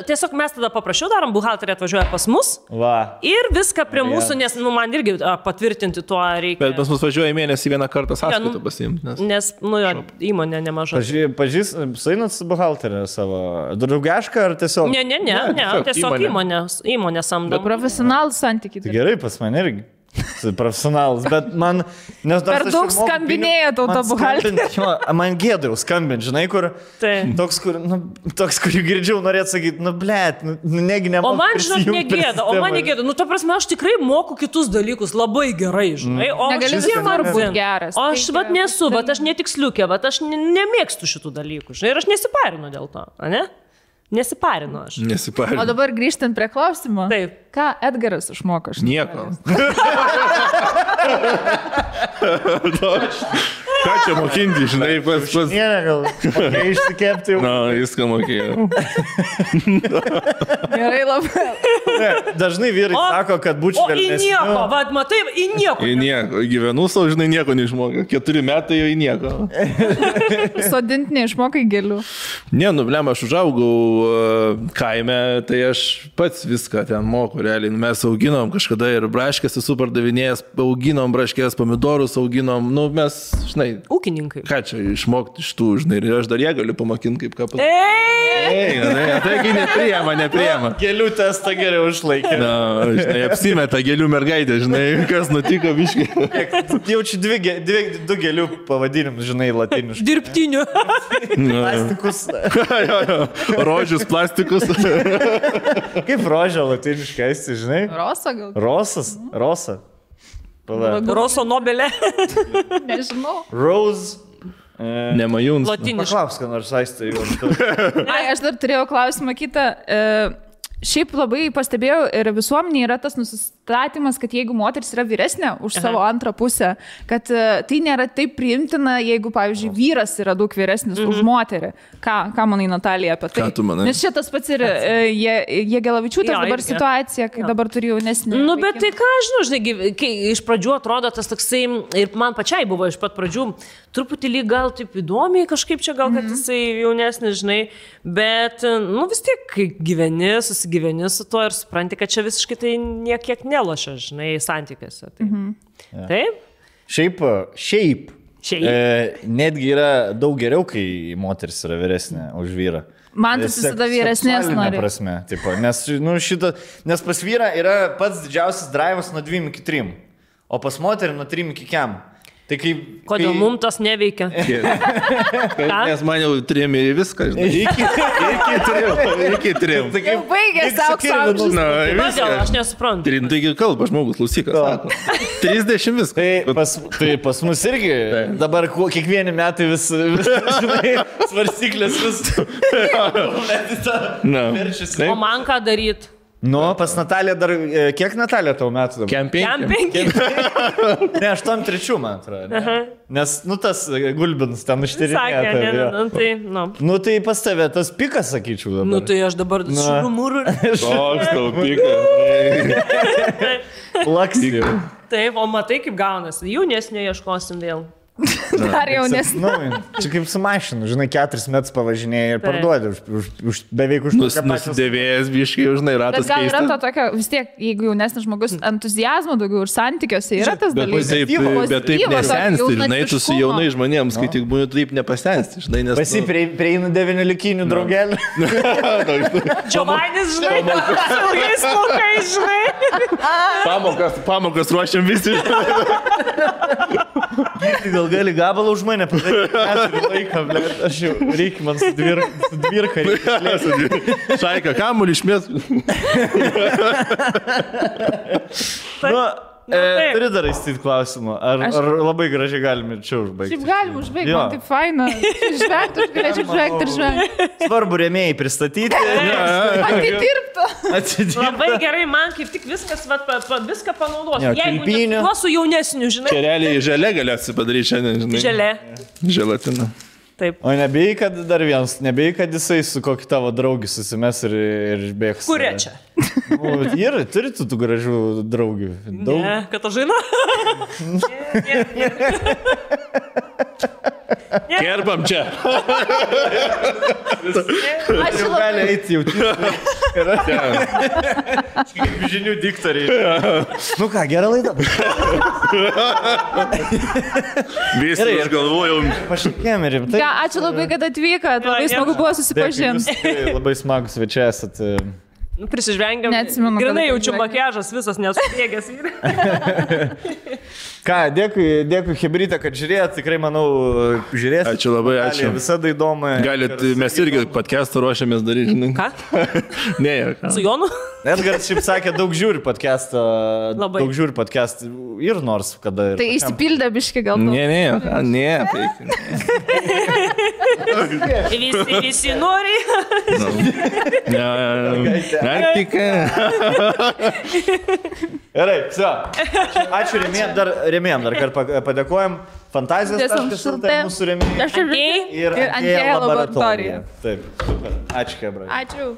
tiesiog mes tada paprašiau, darom, buhalterė atvažiuoja pas mus. Ir viską prie mūsų, nes man irgi patvirtinti tuo reikia. Bet pas mus važiuoja mėnesį vieną kartą sąskaitą pasiimti. Nes, įmonė nemaža. Suinat su buhalterė savo draugišką ar tiesiog? Ne, tiesiog įmonė samdo. Profesionalų santykiai. Tai gerai, pas man irgi. Profesionalas, bet man... Per daug skambinėja tauta buhalterė. Man gėdau skambinti, žinai, kur... Toks, kur girdžiau, norėtų sakyti, blėt, negi nemoku. O man, žinok, negėda. Ta prasme, aš tikrai moku kitus dalykus labai gerai, žinai. Negali visur būti geras. O aš nesu, aš netiksliukė, aš nemėgstu šitų dalykų, žinai, ir aš nesiparinu dėl to, ne? Nesiparinu aš. O dabar grįžtant prie klausimo. Taip. Ką Edgaras išmoko? Nieko. Ką čia mokinti, žinai, pas... Gal išsikepti jau. Na, viską mokėjau. Gerai labai. Dažnai vyrai sako, kad būčiau švelnesniu. O į nieko, vad, matai, į nieko. Į nieko. Gyvenu savo, žinai, nieko neišmokai. 4 metai jau į nieko. Sodinti neišmokai gėlių. Ne, blem, aš užaugau kaime, tai aš pats viską ten moku, realiai. Mes auginom kažkada ir braškės esu pardavinėjęs, auginom braškės, pomidorus auginom, mes, žinai, ūkininkai. Ką čia išmokti iš tų, žinai, ir aš dar ją galiu pamokint kaip ką pasakyti. Taigi nepriema. Gėlių testą geriau išlaikė. Na, žinai, apsimeta gėlių mergaitė, žinai, kas nutiko biškai. Jaučiu 2 gėlių pavadinimus, žinai, latiniškai. Dirbtinių. Plastikus. Rožius plastikus. Kaip rožė latiniškai, esi, žinai? Rosa gal? Rosa. Roso Nobelė. Nežinau. Rose. Nemajuns. Paklausk, ką nors Aistė jau. Aš dar turėjau klausimą kitą. Šiaip labai pastebėjau ir visuomenė yra tas nusistatymas, kad jeigu moteris yra vyresnė už savo antrą pusę, kad tai nėra taip priimtina, jeigu, pavyzdžiui, vyras yra daug vyresnis už moterį. Ką manai, Natalija, apie tai? Ką tu manai? Nes šitas pats ir Jegelavičiūtės dabar situacija, kai dabar turi jaunesnį. Nu, bet tai ką, žinai, kai iš pradžių atrodo tas toksai, ir man pačiai buvo iš pat pradžių, truputį lyg gal taip įdomiai kažkaip čia gal, kad jisai jaunesnis, žinai, bet, nu, vis tiek, kai susigyveni su tuo ir supranti, kad čia visiškai tai niekiek nelošia, žinai, santykiuose. Tai. Taip? Šiaip. Netgi yra daug geriau, kai moteris yra vyresnė už vyrą. Man tas visada vyresnės nori. Prasme, tipo, nes, nu, nes pas vyrą yra pats didžiausias drivas nuo 2 iki 3, o pas moterį nuo 3 iki 4. Tai kodėl mums tas neveikia? Nes man jau 3 ir viską, žinai. Iki 3. Jau baigėsi aukso amžius. Kodėl, aš nesuprantu. 3, taigi kalba žmogus, klausykas, sako. 30 viską. Tai pas mus irgi dabar kiekvieni metai vis svarstyklės vis verčiasi. O man ką daryti? Nu, pas Nataliją dar, kiek Natalija tau metų dabar? Kem 5. Ne, 8-3, man atrodo. Nes, nu, tas Gulbins ten užtirinėta. Sakė, tai, nu. Nu, tai pas tave tas pikas, sakyčiau dabar. Nu, tai aš dabar šurumūrų. Toks tau pikas. Laksijų. Taip, o matai, kaip gaunasi. Jaunesnio ieškosim vėl. Dar jaunesnė. Nu, čia kaip su mašinu, žinai, 4 metus pavažinėjai ir parduodi beveik už nusidėvėjęs biškai, žinai, ratas keistas. Bet gal yra to tokio, vis tiek, jeigu jaunesnis žmogus entuzijazmo daugiau ir santykiuose yra tas dalykas. Bet taip nesensti, žinai, tu su jaunai žmonėms, kai tik būni taip nepasensti, žinai, nes... Pasi prieina 9 likinių draugelį. Giovanis, žinai, ilgais plaukais, žinai. Pamokas ruošiam visi. Gal gali gabalą už mane padaryti. Laiką, ble, aš jau reikia man su dvirka. Šaika, kamuolį išmės. Turi dar įstyti klausimą. Ar labai gražiai galime čia užbaigti? Šiaip galim užbaigti, man taip faina. Žvengti, aš galėčiau žvengti ir žvengti. Svarbu rėmėjai pristatyti. Atidirbtų. Labai gerai, man kaip tik viskas, viską panaudosiu. Jeigu nesuosiu jaunesnių, žinai. Čia realiai želė galėsi padaryti šiandien, žinai. Želė. Želatina. Taip. O nebijai, kad dar vienas, nebijai, kad jisai su kokį tavo draugį susimes ir bėgs. Kurie čia? Ir turi tų gražių draugių. Ne, Katažina? Kerbam čia. Aš jau gali eiti jau. Kaip žinių diktoriai. Nu ką, gerą laidą. Visi aš galvojau. Pašakėm ir rimtai. Ačiū labai, kad atvykot. Labai smagu buvo susipažinti. Labai smagus svečiai esat. Prisižvengiam. Neatsimenu. Grinai jaučiu makiažas visas nesudėgęs. Ką, dėkui Hebrytė, kad žiūrėjot, tikrai manau, žiūrėsit. Ačiū labai, ačiū. Visada įdomu. Galit, mes irgi podcastą ruošiamės daryti, žinai. Ką? Ne, ką. Su Jonu? Edgaras šiaip sakė, daug žiūri podcastą. Labai. Daug žiūri podcastą ir nors kada. Tai išsipildė biški gal. Ne. Visi nori. Praktika. Gerai, все. Ačiū rėmėjom, dar kartą padėkojom. Fantazijos mūsų rėmėjai. Ir Antėja laboratorija. Taip, super. Ačiū, Hebra. Ačiū.